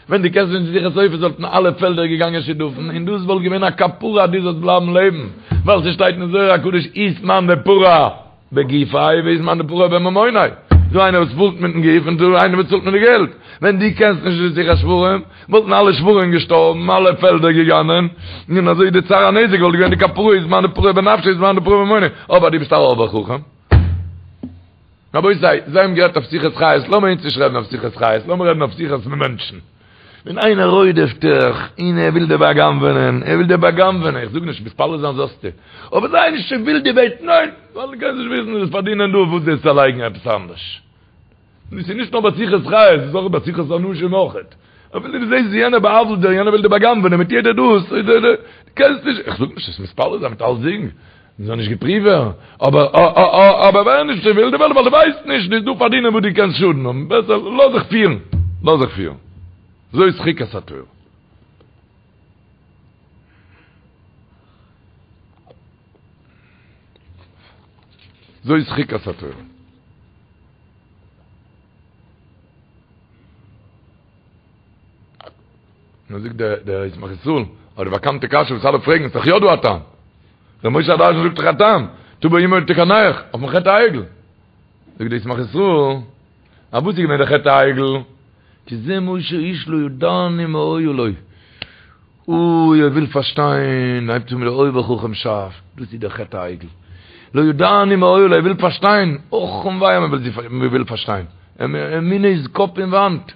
ווען דו קענסט נישט שיחת עופות וואלטן אלע פעלדער געגאנגען שדפון, און דאס וואלט געווען א כפרה אז דו זאלסט בלייבן לעבן, ווייל ס'שטייט אין זוהר הקדוש אית מאן דפרע בגופיה ואית מאן דפרע בממוניה, דא איינער וואס צאלט מיטן גוף און דא איינער וואס צאלט מיט די געלט, ווען דו קענסט נישט די שיחת שוורים וואלטן אלע שוורים געשטארבן, אלע פעלדער געגאנגען, און אזוי די צער הנזק וואלט געווען די כפרה אית מאן דפרע בנפשיה אית מאן דפרע בממוניה, אבער דו ביסט א אויבער חכם. רבותי, זיי האבן גערעדט אויף שיחת חיות, לאמיר אונז נישט רעדן אויף שיחת חיות, לאמיר רעדן אויף שיחת מענטשן. ווען איינער רודפ'ט דיך, און ער וויל דיר בא'גנב'ענען, ער וויל דיר בא'גנב'ענען, איך זאג נישט מתפלל זיין זאלסטו, אבער זיי נישט צו ווילד די וועלט, ניין, ווייל דו קענסט נישט וויסן, וועסט פארדינען דא, וואס דאס צעלייגן עפעס אנדערש. און עס איז נישט נאר ביי שיחת חיות, עס איז אויך ביי שיחת אנשים אויכעט. אפילו דו זעסט ווי יענער בא'עוול'ט דיר, יענער וויל דיר בא'גנב'ענען מיט יעדע דאס, דו קענסט נישט, איך זאג נישט זאלסט מתפלל זיין מיט אלסדינג, מען זאל נישט געפריווט ווערן, אבער אבער ווער נישט צו ווילד ווייל דו ווייסט נישט, דו דא פארדינען וואס דו קענסט שאדן האבן, בעסער לאז זיך פירן, לאז זיך פירן. זאת חוקת התורה. זאת חוקת התורה. נו זאגט דער דער ישמח ישראל, אבער די באקאנטע קשיא וואס אלע פרעגן, איז דאך יא דא א טעם. ר' משה הדרשן זאגט דאך א טעם, תבוא אמו ותקנח, אויפן חטא העגל. זאגט דער ישמח ישראל, א וואס איז געווען דער חטא העגל? כי זה משה האיש לא ידענו מה היה לו. אוי, ער וויל פארשטיין, הייבט אן מיט דער אויבער חכם שאף, דאס איז דער חטא העגל. לא ידענו מה היה לו, ער וויל פארשטיין, אך און וויי אז מען וויל פארשטיין. אמונה איז קאפ אין וואנט.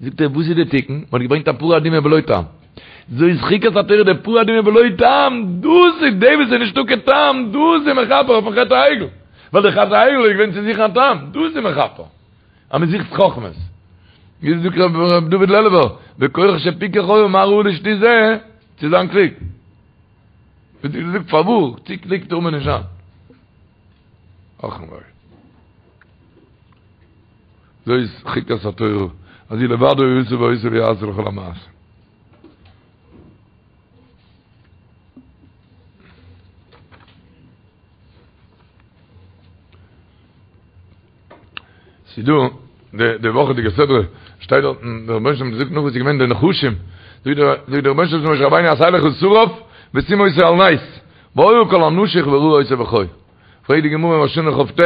זאגט ער, וואס איז די תיקון? מען האט געברענגט א פרה אדומה בלא טעם. זאת חוקת התורה די פרה אדומה בלא טעם, דאס איז די וואס איז נישטא קיין טעם, דאס איז מכפר אויפן חטא העגל. ווייל די חטא העגל איז געווען צו זוכן א טעם, דאס איז מכפר. אז מען זוכט חכמות. ווי זאגט ר' דוד לעלובער, וכוח שפיקח היה מה ראה לשטות זה, צו זיין קלוג. ווי דו זאגסט פארוואס, צו קלוג טאר מען נישט זיין. אך און וויי. זאת חוקת התורה, אז הוא לבדו עשה ועושה ויעשה לכל המעשים. ס'דא די די וואכעדיגע סדרה שטייט דארט דער רבונו של עולם זאגט נאך וואס איז געווען די נחשים זאגט דער זאגט דער רבונו של עולם צו משה רבינו עשה לך שרף ושים אותו על נס והיה כל הנשוך וראה אותו וחי פרעגט די גמרא אין ראש השנה כ"ט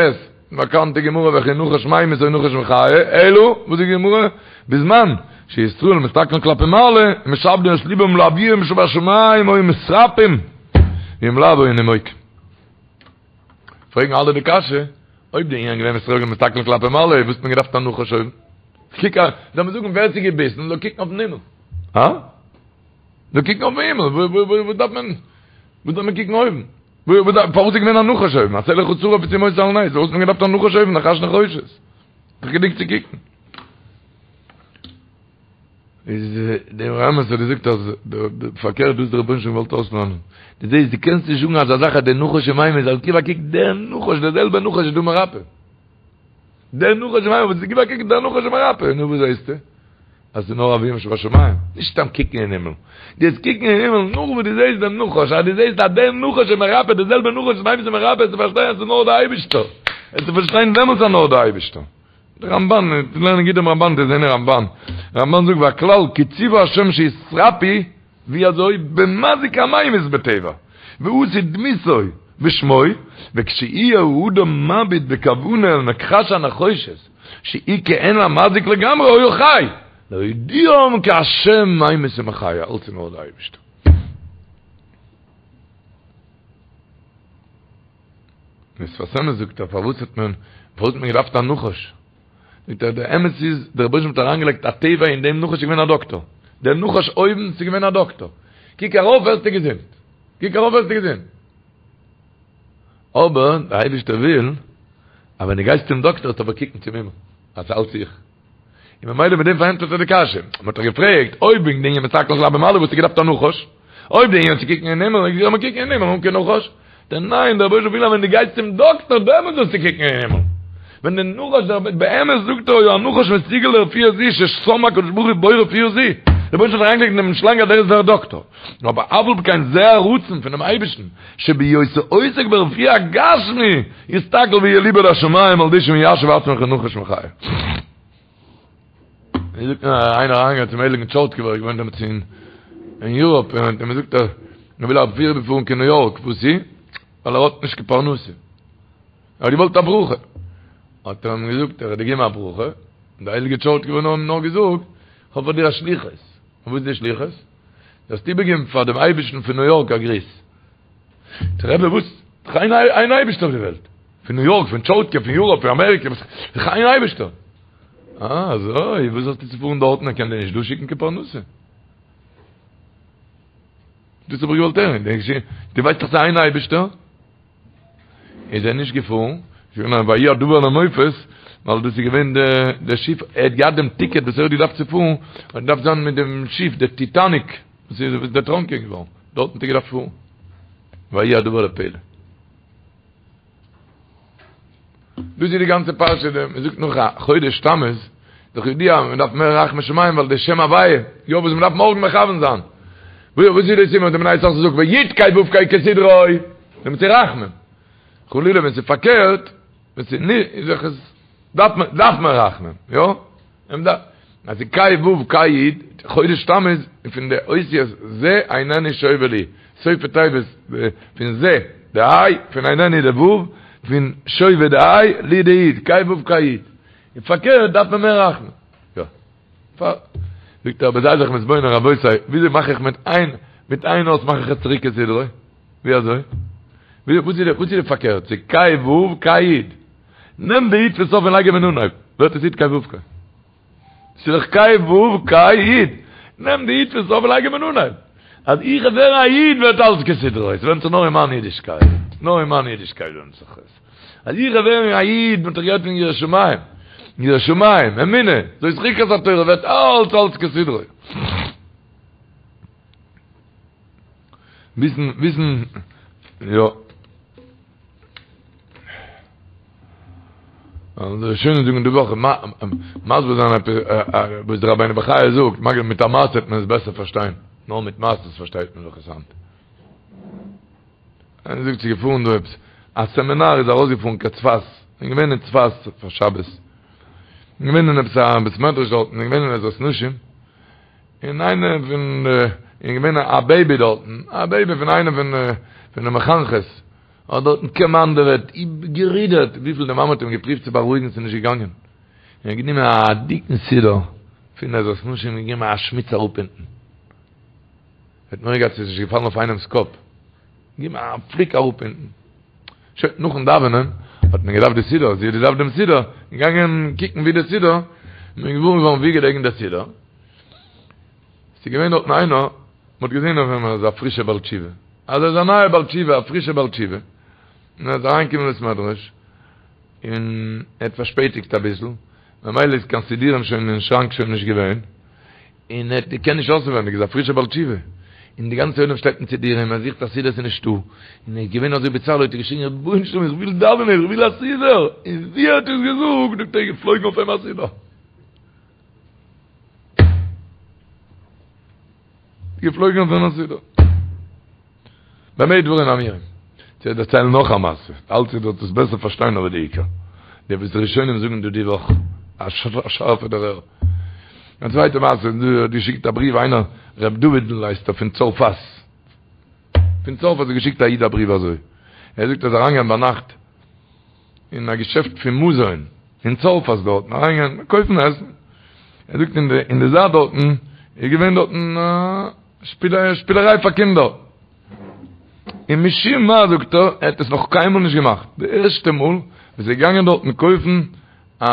באקאנטע גמרא וכי נחש ממית או נחש מחיה אלא וואס זאגט די גמרא בזמן שישראל מסתכלין כלפי מעלה ומשעבדין את לבם לאביהם שבשמים היו מתרפאים ואם לאו היו נימוקים פרעגן אלע די קשיא, אויב די ענין געווען ישראל מסתכלין כלפי מעלה, וואס האט מען געדארפט א נחש אויבן? קוק א, זאל מען זאגן ווער ס'איז געביסן זאל קוקן אויפן הימל. הא? זאל קוקן אויפן הימל, וואס דארף מען, וואס דארף מען קוקן אויבן? פארוואס איז געווען א נחש אויבן? עשה לך שרף ושים אותו על נס, פארוואס האט מען געדארפט א נחש אויבן, נחש נחושת? דאך גענוג צו קוקן. איז דער אמת האט געזאגט אז פארקערט דאס דער רבונו של עולם געוואלט אויסלערנען. דו זעסט דו קענסט נישט זאגן אזא זאך אז דער נחש איז ממית זאל גיב א קוק דער נחש דער זעלבער נחש איז דא מרפא. דער נחש איז ממית גיב א קוק דער נחש איז מרפא. נו וואס זעסטו? אז ס'איז נאר אביהם שבשמים. נישט סתם קוקן אין הימל. דו וועסט קוקן אין הימל נאך וואס דו זעסט דעם נחש, אז דו זעסט אז דער נחש איז מרפא, דער זעלבער נחש איז ממית איז מרפא, וועסטו פארשטיין אז ס'איז נאר דער אייבערשטער. וועסטו פארשטיין דעמאלטס אז נאר דער אייבערשטער. די רמבן, לערנען גוט דעם רמבן, דאס זעהן אין רמבן. רמבן זאגט והכלל כי ציוה השם שיתרפאו, ווי אזוי? במזיק הממית בטבע, ועשו דמותו ושמו, וכשיהיה האדם מביט בכוונה אל מכחש הנחושת, שהיא כעין המזיק לגמרי היה חי, להודיעם כי השם ממית ומחיה, אלץ איז נאר די אייבערשטער. דער שפת אמת זאגט ער פארוואס האט מען פארוואס האט מען געדארפט א נחש? זאגט ער דער אמת איז דער רבונו של עולם האט אריינגעלייגט א טבע אין דעם נחש איז געווען א דאקטאר, דער נחש אויבן איז געווען א דאקטאר, קוק ארויף ווערסטו געזונט, קוק ארויף ווערסטו געזונט. אבער דער אייבערשטער וויל אז ווען דו גייסט צום דאקטאר זאלסטו אבער קוקן צום הימל אז ס'איז אלץ איך. און ממילא מיט דעם פארענטפערט ער די קשיא. מען האט דאך געפרעגט, אויב וועגן די ענין מסתכל כלפי מעלה וואלסטו געדארפט א נחש? אויב די ענין צו קוקן אין הימל, זאל מען קוקן אין הימל אן קיין נחש? דער ניין, דער רבוש"ע וויל אז ווען דו גייסט צום דאקטער דעמאלט זאלסטו קוקן אין הימל. ווען די נחש דער באמת זאגט ער היה הנחש מסוגל לרפואה זו ששם הקדוש ברוך הוא בו רפואה זו. דער רבוש"ע האט אריינגעלייגט אין דעם שלאנג אז דער איז דער דאקטער. אבער אף על פי כן זה הרצון פונעם אייבערשטן שבהיותו עוסק ברפואה הגשמי יסתכל ויהיה ליבו לשמים על ידי שמיישב עצמו כנחש מחיה. ווי זאגט מען איינער אריינגעגאנגען צום הייליגן טשורטקובער ער געוואוינט דעמאלטס אין אין יוראפ און האט אים געזאגט אז ער וויל אריבערפארן קיין ניו יארק וואס איז? ווייל ער האט נישט קיין פרנסה ער האט געוואלט א ברכה האט ער אים געזאגט ער האט געגעבן א ברכה און דער הייליגער טשורטקובער האט אים נאר געזאגט כ'האב פאר דיר א שליחות און וואס איז די שליחות? זאלסט איבערגעבן פאר דעם אייבערשטן פון ניו יארק א גריס. זאגט ער רבי וואס? דאך איין איין אייבערשטער אויף די וועלט. פון ניו יארק, פון טשורטקוב, פון יוראפ, פון אמעריקע, וואס? דאך איין אייבערשטער. אה, אזוי, וואס האסטו צו פארן דארטן, ער קען דיר נישט דא שיקן קיין פרנסה. דאס האב איך געוואלט הערן. דו ווייסט דאך ס'איז איין אייבערשטער. איז ער נישט געפארן, איז געווען א ויהי הדבר למופת, ווייל דאס איז געווען די שיף, ער האט געהאט דעם טיקעט וואס ער האט געדארפט צו פארן, האט געדארפט זיין מיט דעם שיף, די טיטאניק, וואס איז דערטראנקען געווארן, דארטן האט ער געדארפט פארן, ויהי הדבר לפלא. דאס איז די גאנצע פרשה, מען זאגט נאך א חודש תמוז, דאך ידוע מען דארף מער רחמי שמים ווייל די שם הוויה, יא וואס מען דארף מארגן מכוון זיין. וואס איז די סימן די בני יששכר זאגט ויו"ד קיי וא"ו קיי כסדרו, דעמאלטס איז רחמים. חלילה ווען ס'איז פארקערט, ווען ס'איז נישט, איז דאך עס דארף מען דארף מען רחמים, יא? מען דארף אז ס'איז קיי וא"ו קיי יו"ד, חודש תמוז איז פון די אותיות זה איננו שווה לי, סופי תיבות פון זה די ה', פון איננו די ו', פון שווה די ה', לי די יו"ד, קיי וא"ו קיי יו"ד. און פארקערט דארף מען מער רחמים. יא. פאר. זאגט ער אבער זיי זיך מתבונן רבותי, וויאזוי מאך איך מיט איין, מיט איין אות מאך איך עס צוריק כסדרו? ווי אזוי? וואס איז די, וואס איז די פארקערט? ס'איז קיי ו' קיי יו"ד. נעם די יו"ד פון סוף און לייג אים אין אנהויב, ווערט עס יו"ד קיי ו' קיי. ס'איז דאך קיי ו' קיי יו"ד. נעם די יו"ד פון סוף און לייג אים אין אנהויב. אז איך ווער א איד ווערט אלס כסדרו. עס ווענדט זיך נאר אין מיין אידישקייט. נאר אין מיין אידישקייט ווענדט זיך עס. אז איך ווער א איד, מ'האט דאך גערעדט פון יראת שמים. יראת שמים, אמונה, זאת חוקת התורה, ווערט אלץ אלץ כסדרו. וויסן, וויסן, יא. די ראשונים זאגן די וואך, מסביר זיין עפעס וואס דער רבינו בחיי זאגט, מגלה מיט א מעשה וועט מען עס בעסער פארשטיין, נאר מיט מעשות פארשטייט מען דאך עס היינט. איינער זאגט ס'איז געפארן דא עפעס א סעמינאר איז ארויסגעפארן קיין צפת, און געווען אין צפת פאר שבת, און געווען אין עפעס א בית מדרש דארטן, און געווען אין עזרת נשים, און איינער פון די, און געווען א בעיבי דארטן, א בעיבי פון איינע פון פון די מחנכות, האט דארטן קאמאנדעוועט, גערודערט, וויפיל די מאמע האט אים געפריווט צו בארואיגן ס'איז נישט געגאנגען, און האט גענומען א דיקן סידור פון עזרת נשים און געגעבן א שמיץ אראפ אונטן. האט מורא געהאט ס'איז נישט געפאלן אויף איינעמ'ס קאפ, געגעבן א פליק אראפ אונטן. שוין, נאכן דאווענען האט מען געדארפט די סידור, זי האט געדארפט דעם סידור, געגאנגען קוקן ווי די סידור, מען איז געוואר געווארן ווי געלעגן דער סידור, ס'איז געווען דארטן איינער, מען האט געזען אויף אים אז ער איז א פרישער בעל תשובה, אז ער איז א נייער בעל תשובה, א פרישער בעל תשובה, און ער איז אריינגעקומען אין בית מדרש, און ער האט פארשפעטיגט אביסל, ממילא איז קיין סידורים שוין אין שראנק שוין נישט געווען, און ער קען נישט אויסנווייניג, איז א פרישער בעל תשובה, און די גאנצע עולם שטייט מיט סידורים, ער זוכט א סידור ס'איז נישטא, און ער איז געווען אזוי בצער האט ער געשריגן רבונו של עולם איך וויל דאווענען איך וויל א סידור, און ווי ער האט עס געזאגט זאגט ער איז געפלויגן אויף אים א סידור. געפלויגן אויף אים א סידור. במה דברים אמורים? צו דערציילן נאך א מעשה, אלץ איר זאלט עס בעסער פארשטיין אבער די עיקר, די וואס די ראשונים זאגן דא די וואך, א שארפע דערהער. א צווייטע מעשה, דא האט געשיקט א בריוו איינער ר' דוד'ל הייסט ער פון צרפת, פון צרפת האט געשיקט א איד א בריוו אזוי, ער זאגט ער איז אריינגעגאנגען ביינאכט אין א געשעפט פון מזון אין צרפת דארטן, אריינגעגאנגען קויפן עסן, ער זאגט אין די אין די זייט דארטן איז געווען דארטן א. שפילעריי פאר קינדער. און משום מה זאגט ער, ער האט עס נאך קיינמאל נישט געמאכט, די ערשטע מאל וואס ער איז געגאנגען דארטן קויפן א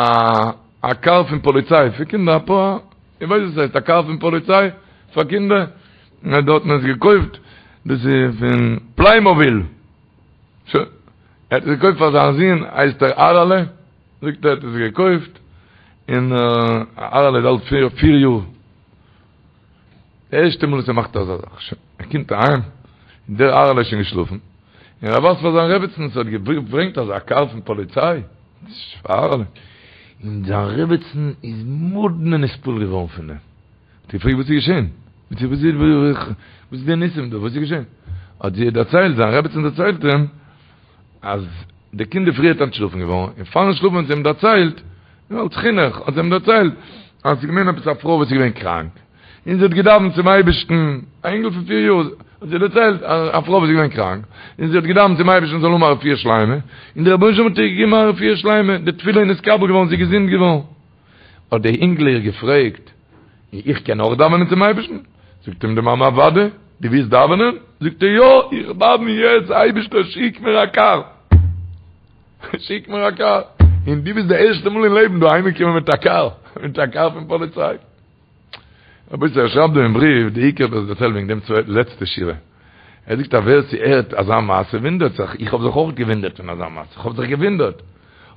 א קאר פון פאליציי פאר קינדער, א פאר, איך ווייס וואס הייסט א קאר פון פאליציי פאר קינדער, און ער האט דארטן עס געקויפט, דאס איז פון פליימאביל, שוין, ער האט עס געקויפט פאר זיין זון, הייסט ער אהרעלע, זאגט ער האט עס געקויפט, און אהרעלע איז אלט פיר יאר. די ערשטע מאל וואס ער מאכט אזא זאך, שוין, ער קומט אהיים, און דער אהרעלע איז שוין געשלאפן, און ער ווייזט פאר זיין רעבעצן, ס'האט געברענגט אזא קאר פון פאליציי, פאר אהרעלע, און זיין רעבעצן איז מאדנע נתפעל געווארן פון דעם, האט געפרעגט וואס איז געשען, וואס איז די ניסים דא, וואס איז געשען, האט זי דערציילט, זיין רעבעצן דערציילט אים, אז די קינד איז פריערט אנטשלאפן געווארן, און פארן שלאפן האט זי אים דערציילט, אלס חינוך, האט זי אים דערציילט, אז ס'איז געווען עפעס א פרוי וואס איז געווען קראנק, און זי האט געדאווענט צום אייבערשטן, א אינגל פון פיר יאר, האט זי דערציילט, א פרוי וואס איז געווען קראנק, און זי האט געדאווענט צום אייבערשטן זאל האבן א רפואה שלימה, און דער רבונו של עולם האט איר געגעבן א רפואה שלימה, די תפילה איז נתקבל געווארן, זי איז געזונט געווארן. האט דער אינגל איר געפרעגט, און איך קען אויך דאווענען צום אייבערשטן? זאגט אים די מאמע, אוודאי, דו ווילסט דאווענען? זאגט ער, יא, איך דאווען יעצט, אייבערשטער שיק מיר א קאר, שיק מיר א קאר, און דו ביסט די ערשטע מאל אין לעבן דא אהיימגעקומען מיט א קאר, מיט א קאר פון פאליציי. רבותי, ער שרייבט דא אין בריוו, די עיקר וואס דערציילט וועגן דעם צווייטן לעצטע שורה. ער זאגט אז ווער ס'הערט אזא מעשה וואונדערט זיך, איך האב זיך אויך געוואונדערט פון אזא מעשה, איך האב זיך געוואונדערט.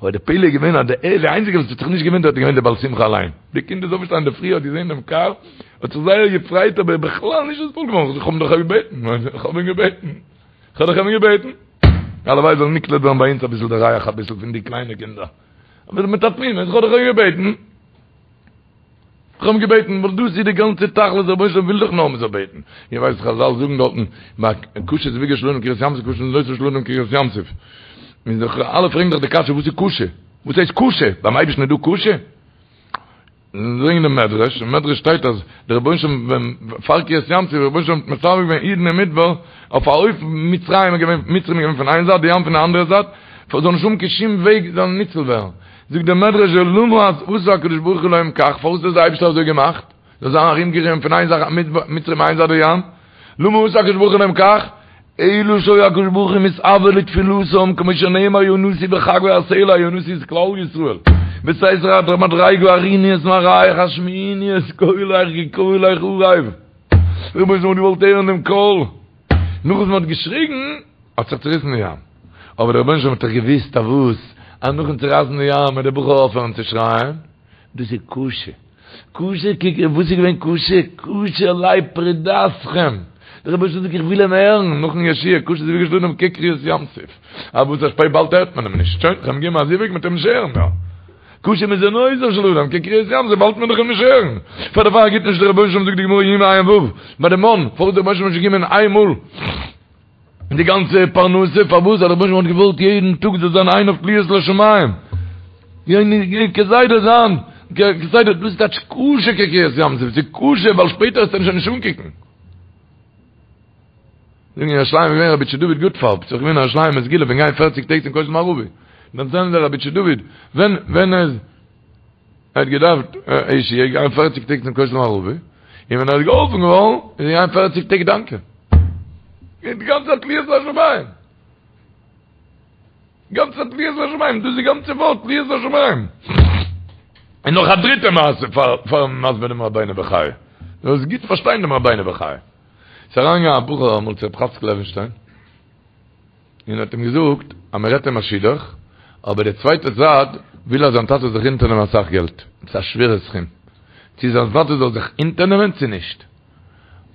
אבער די פלא איז געווען אז די איינציגע וואס האט זיך נישט געוואונדערט איז געווען די בעל שמחה אליין. די קינד איז אויפגעשטאנען אינדערפרי האט געזען דעם קאר, האט זיך זייער געפרייט אבער בכלל נישט נתפעל געווארן, איך האב אים דאך געבעטן, איך האב אים געבעטן, איך האב דאך אים געבעטן. הלוואי זאל נקלט ווערן ביי אונז אביסל די ריח אביסל פון די קליינע קינדער. אבער מיט א תמימות, איך האב דאך אים געבעטן. איך האב אים געבעטן, ווייל דאס איז די גאנצע תכלית, דער רבונו של עולם וויל דאך נאר מען זאל בעטן. איר ווייסט חזל זאגן דארטן, ביי קשה זיווגו של אדם כקריעת ים סוף, קשה מזונותיו של אדם כקריעת ים סוף. און זיך אלע פרעגן דאך די קשיא, וואס איז קשה? וואס הייסט קשה? ביים אייבערשטן איז דא קשה? זאגן די מדרש, אין מדרש שטייט אז דער רבונו של עולם ווען פאר קריעת ים סוף, דער רבונו של עולם האט מצווה געווען אידן אין מדבר, אויף א אופן מצרים איז געווען, מצרים איז געווען פון איין זייט, די ים פון די אנדערע זייט, זאל נישט האבן קיין שום וועג זאלן ניצול ווערן. זאגט דער מדרש למה עשה הקדוש ברוך הוא להם כך, פארוואס האט דער אייבערשטער אזוי געמאכט, זאל זיין ארומגערינגלט פון איין זייט מצרים איין זייט די ים, למה עשה הקדוש ברוך הוא להם כך, אלא שהיה הקדוש ברוך הוא מתאוה לתפילתם, כמו שנאמר יונתי בחגוי הסלע, יונתי איז כלל ישראל, בסתר המדריגה הראיני את מראיך השמיעיני את קולך כי קולך ערב, רבונו של עולם האט געוואלט הערן דעם קול, נאך וואס מען האט געשריגן האט זיך צוריסן די ים, אבער דער רבונו של עולם האט דאך געוואוסט אז וואס, אז נאכן צורייסן די ים וועט דער בחור אויפהערן צו שרייען, דאס איז קשה, קשה, קוק וואס איז געווען קשה, קשה עלי פרידתכם, דער רבונו של עולם זאגט איך וויל אים הערן, נאכן ישועה, קשה זיווגו של אדם כקריעת ים סוף, אבער וואס א שפעט באלד הערט מען אים נישט, שוין, כ'האב אים געגעבן א זיווג מ'וועט אים נישט הערן מער. קשה מזונותיו של אדם כקריעת ים סוף, באלד וועט מען דאך אים נישט הערן. פאר דערפאר גיט נישט דער רבונו של עולם זאגט די גמרא יומא ע"ו, ביי די מן, פארוואס דער רבונו של עולם נישט געגעבן איין מאל די גאנצע פרנסה, פארוואס? ווייל דער רבונו של עולם האט געוואלט יעדן טאג זאל זיין עיניו תלויות לשמים, כסדר זיין, כסדר, דאס איז טייטש קשה כקריעת ים סוף, ס'איז קשה ווייל שפעטער וועסטו אים שוין נישט אנקוקן. זאגן אין ירושלים איז געווען רבי איטשע דוד גוטפארב, ס'איז געווען אין ירושלים א סגולה פון גיין פערציג טעג צום כותל מערבי, דערציילן זיי רבי איטשע דוד, ווען ווען ער האט געדארפט א ישועה איז געגאנגען פערציג טעג צום כותל מערבי, און ווען ער איז געהאלפן געווארן איז ער געגאנגען פערציג טעג דאנקען. די גאנצע צייט תלויות לשמים. גאנצע צייט תלויות לשמים, דאס איז די גאנצע ווארט תלויות לשמים. און נאך א דריטע מעשה פאר פארן מסביר דעם רבינו בחיי. דו זאלסט גוט פארשטיין דעם רבינו בחיי. ס'איז אריינגעגאנגען א בחור אמאל צו רב חאצקל לעווינשטיין, און האט אים געזאגט אז מען רעדט אים א שידוך, אבער די צווייטע זייט וויל אז זיין טאטע זאל זיך אונטערנעמען אסאך געלט, עפעס א שווערע סכום, צו זיין טאטע זאל זיך אונטערנעמען צו נישט.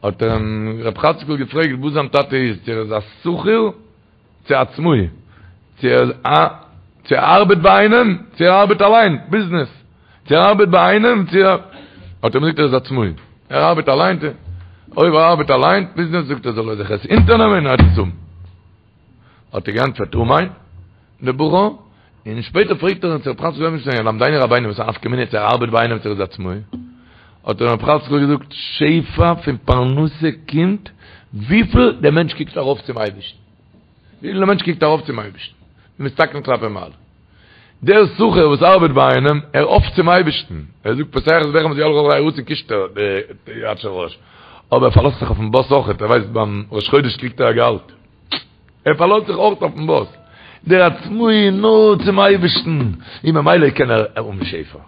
האט אים רב חאצקל געפרעגט וואס זיין טאטע איז, צו ער איז א שכיר, צו עצמאי, צו ער איז א, צו ער ארבעט ביי איינעם, צו ער ארבעט אליין, ביזנעס, צו ער ארבעט ביי איינעם, צו ער, האט ער אים געזאגט ער איז עצמאי, ער ארבעט אליין, אויב ער ארבעט אליין, ביזנעס, זאגט ער זאל ער זיך עס אונטערנעמען און ער וועט עס האבן. האט ער געענטפערט אמן, דער בחור, און שפעטער פרעגט ער אים צו רב חאצקל לעווינשטיין, ילמדנו רבינו וואס א נפקא מינה צו ער ארבעט ביי איינעם צו ער איז עצמאי, האט אים רב חאצקל געזאגט, שפע פון פרנסה קומט וויפיל דער מענטש קוקט ארויף צום אייבערשטן, וויפיל דער מענטש קוקט ארויף צום אייבערשטן, ומסתכלין כלפי מעלה. דער שכיר וואס ארבעט ביי איינעם, ער האפט צום אייבערשטן, ער זאגט פותח את ידך ומשביע לכל חי רצון קישט ער די יד של ראש, אבער ער פארלאזט זיך אויפן באס אויכעט, ער ווייסט ביים ראש חודש קריגט ער א געהאלט. ער פארלאזט זיך אויך אויפן באס, דער עצמאי נאר צום אייבערשטן, און ממילא קען ער האבן שפע.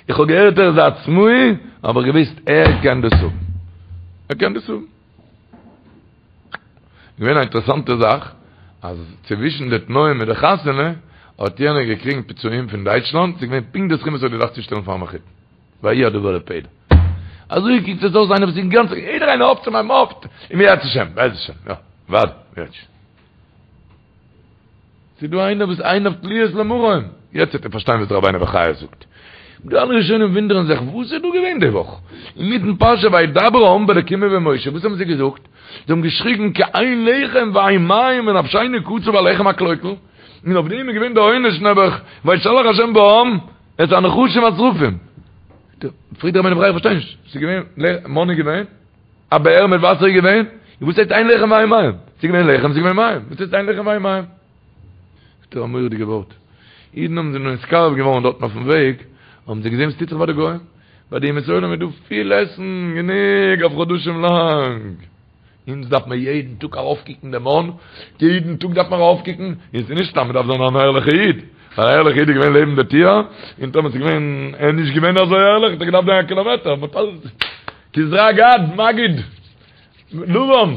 איך האב געהערט ער איז א עצמאי, האב איך געוואוסט ער קען דאס האבן. ער קען דאס האבן. געווען א אינטערעסאנטע זאך, אז צווישן די תנאים מיט די חתונה, האט יענער געקריגן פיצויים פון דייטשלאנד, ס'איז געווען פונקט די סכום וואס ער האט געדארפט צושטעלן פארן מחותן. ויהי הדבר לפלא. אזוי קוקט עס אויס איינער וואס איז אינגאנצן, יעדער איינער האפט צום אים האפט, אם ירצה השם, בעז השם, יא, ווארט, יעצט. ס'איז דא איינער וואס עיניו תלויות למרום, יעצט וועט איר פארשטיין וואס דער רבינו בחיי זאגט. די אלע ראשונים וואונדערן זיך, וואס איז דא געווען די וואך? אינמיטן פרשה וידבר העם באלקים ובמשה, וואס האבן זיי געזאגט? זיי האבן געשריגן כי אין לחם ואין מים ונפשנו קצה בלחם הקלוקל, און אויף דעם איז געווען די עונש נעבעך, וישלח השם בעם את הנחשים השרפים. פרעגט דער רבינו בחיי איך פארשטיי נישט, ס'איז געווען מן איז געווען, א באר מיט וואסער איז געווען, און וואס הייסט אין לחם ואין מים? ס'איז געווען לחם, ס'איז געווען מים, וואס הייסט אין לחם ואין מים? זאגט ער א מורא'דיגע ווארט, אידן האבן זיך נתקרב געווארן דארטן אויפן וועג, האבן זיי געזען וואס טוט זיך ביי די גוים, ביי די אומות העולם איז דא פיל עסן, גענוג אויף חדשים לאנג. אונז דארף מען יעדן טאג ארויפקוקן דעם מן, יעדן טאג דארף מען ארויפקוקן, און ס'איז נישט סתם, מ'דארף זיין אן ערליכע איד, ווייל א ערליכע איד איז געווען לעבן די טיר, און טאמער ס'איז געווען, ער איז נישט געווען אזוי ערליך, האט ער געדארפט גיין א קילאמעטער, מ'האט אלעס, כזרע גד, מגיד, לבן,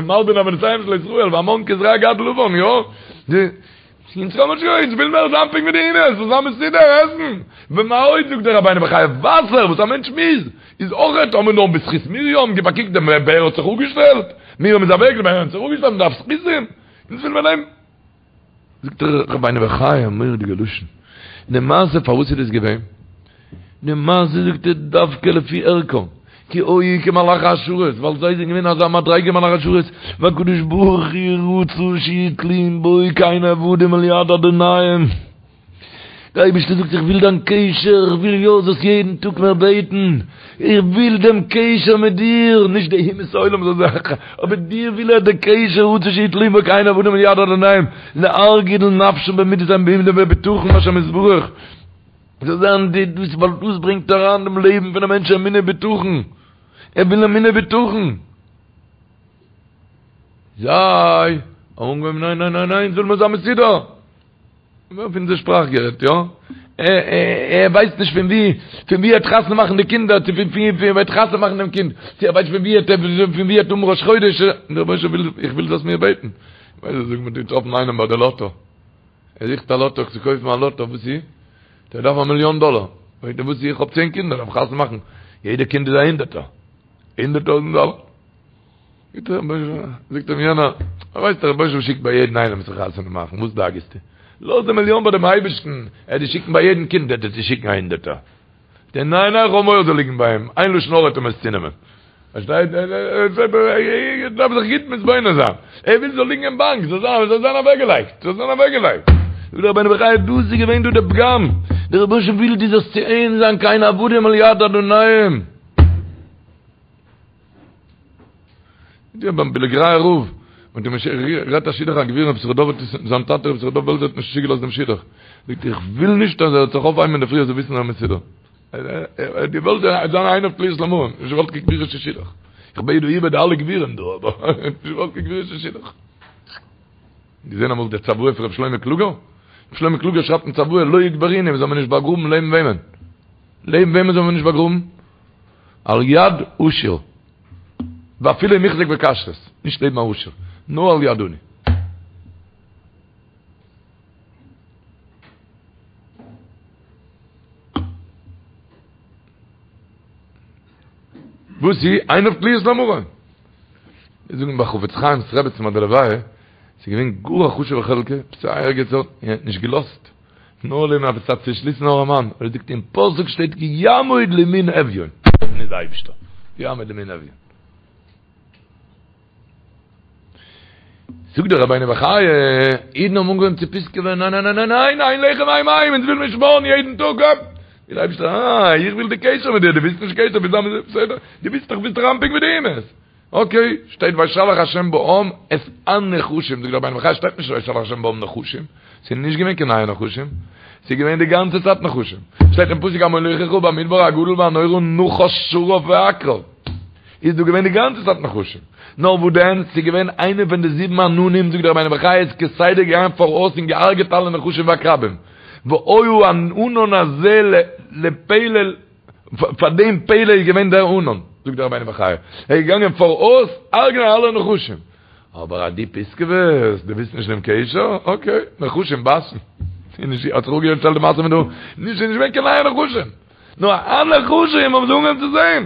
מלבין עוונותיהם של ישראל, והמן כזרע גד לבן, יא? אונז קען מען נישט אונז וויל מער זיין פונקט ווי די אומות, זאל זיין מסודר עסן, ומה עוד זאגט דער רבינו בחיי וואסער וואס א מענטש מוז, איז אויכעט האבן מיר נאר בזכות מרים, גיב א קוק דער באר האט זיך אפגעשטעלט, מרים איז אוועק, די באר האט זיך אפגעשטעלט, מען דארף זכותים, אונז וויל מען נעמען. זאגט דער רבינו בחיי א מורא'דיגע לשון, די מעשה פארוואס איז דאס געווען? די מעשה זאגט ער דווקא לפי ערכם, כי היו כמלאכי השרת, ווייל זיי זענען געווען אזא מדריגה מלאכי השרת, והקדוש ברוך הוא רצה שיהיו תלויים בו כעין עבדים אל יד אדוניהם. דער אייבערשטער זאגט איך וויל דיין קשר, איך וויל יא זאלסט יעדן טאג מיר בעטן, איך וויל דעם קשר מיט דיר, נישט די אומות העולם זאל זיין, אבער דיר וויל ער די קשר, רצה שיהיו תלויים בו כעין עבדים אל יד אדוניהם, להרגיל נפשם במידת האמונה ובטחון בהשם יתברך. זאל זיין די דאס ווייל דאס ברענגט אריין דעם לעבן פון א מענטש אמונה בטחון, ער וויל אמונה בטחון. זיי האבן אנגעהויבן ניין ניין ניין ניין זאל מען זיין מסודר. אויף אונזער שפראך גערעדט יא, ער ווייסט נישט פון ווי פון ווי ער וועט חתונה מאכן די קינדער, צו פון ווי ער וועט חתונה מאכן דעם קינד, צו ער ווייסט פון ווי ער פון ווי ער וועט האבן ראש חודש, דער רבונו של עולם וויל איך וויל זאלסט מיר בעטן. ווייל זיי זאגן מ'האט געטראפן איינעם ביי די לאטא. ער זוכט א לאטא צו קויפן א לאטא, וואס איז? ער דארף א מיליאן דאלער. פרעגט ער וואס איז? איך האב צען קינדער, דארף חתונה מאכן, יעדע קינד איז א הונדערטער, הונדערט טויזנט דאלער. זאגט אים יענער, ווייסט דער רבוש ע שיקט ביי יעדן איינעם זיך חתונה מאכן, וואס דאגה'סטו? לאז די מיליאן ביי דעם אייבערשטן, ער וועט דיר שיקן ביי יעדן קינד וועט ער דיר שיקן א הונדערטער. זאגט ער, ניין ניין, כ'האב מורא זאל ליגן ביי אים, איין לשון הרע וועט אים עס צונעמען. פארשטייט? ער דארף זיך גוט מתבונן זיין, ער וויל ס'זאל ליגן אין באנק, זאל זיין, זאל זיין אוועקגעלייגט, זאל זיין אוועקגעלייגט. זאגט דער רבינו בחיי, דאס איז געווען דא די פגם, דער רבוש ע וויל דו זאלסט צו אים זיין כעין עבדים על יד אדוניהם. די ביים בילגורייער רב, מיט דעם גערעדט א שידוך א גביר רבי יששכר דוב האט עס זיין טאטע רבי יששכר דוב בעלזער האט נישט צוגעלאזט דעם שידוך, זאגט איך וויל נישט אז ער זאל זיך אויפהייבן אינדערפרי ער זאל וויסן אז ער איז מסודר, ער האט געוואלט זיין עיניו תלויות למרום, נישט געוואלט קיין גבירישע שידוך, איך בעט דא איבער די אלע גבירים דא אבער נישט געוואלט קיין גבירישע שידוך. געזען אמאל די צוואה פון רבי שלמה קלוגער? רבי שלמה קלוגער שרייבט אין צוואה לא יקברוני זאל מען נישט באגראבן לעבן וועמען? לעבן וועמען זאל מען נישט באגראבן? על יד עשיר, ואפילו אם החזיק בכשרות, נישט לעבן א עשיר, נאר על יד עני. וואס איז? עיניו תלויות למרום. זיי זאגן ביי חפץ חיים'ס רעבעצן ביי די לוויה, ס'איז געווען גאר א חשוב'ע חלקה, עפעס א ערגעץ און ער האט נישט געלאזט. נאר לעבן עפעס א צעשליסן ארעמאן, ער זאגט אין פסוק שטייט כי יעמוד לימין אביון, נישט די אייבישטער, כי יעמוד לימין אביון. זאגט דער רבינו בחיי, אידן האבן אנגעהויבן צו פיסקעווען, ניין ניין ניין ניין ניין, אין לחם אין מים, אונז וויל מיר שמארן יעדן טאג, אפ! זאגט דער אייבישטער, אה, איך וויל די קשר מיט דיר, דו ווילסט נישט קשר, ביסט בסדר, דו ווילסט דאך ביסט דאך אנפינג מיט די אומות. אקעי, שטייט וישלח השם בעם את הנחשים, זאגט דער רבינו בחיי שטייט נישט וישלח השם בעם נחשים, ס'איז נישט געווען קיין נייע נחשים, ס'איז געווען די גאנצע צייט נחשים, שטייט אין פסוק המוליכך במדבר הגדול והנורא נחש שרף ועקרב, איז דא געווען די גאנצע צייט נחשים, נאר וואס דען, ס'איז געווען איינע פון די זיבן עננים, זאגט דער רבינו בחיי איז כסדר געגאנגען פאראויס און געהארגעט אלע נחשים ועקרבים, והיה הענן הזה לפלא פאר דעם פלא איז געווען דער ענן, זאגט דער רבינו בחיי, ער איז געגאנגען פאראויס הרג'נען אלע נחשים, אבער אז דו פיסקעוועסט, דו ווילסט נישט דעם קשר, אקעי, נחשים בייסן, האט זיך אפגעשטעלט די מעשה מיט דא, נישט ס'איז נישט געווען קיין נייע נחשים, נאר הנחשים האבן זיי אנגעהויבן צו זען,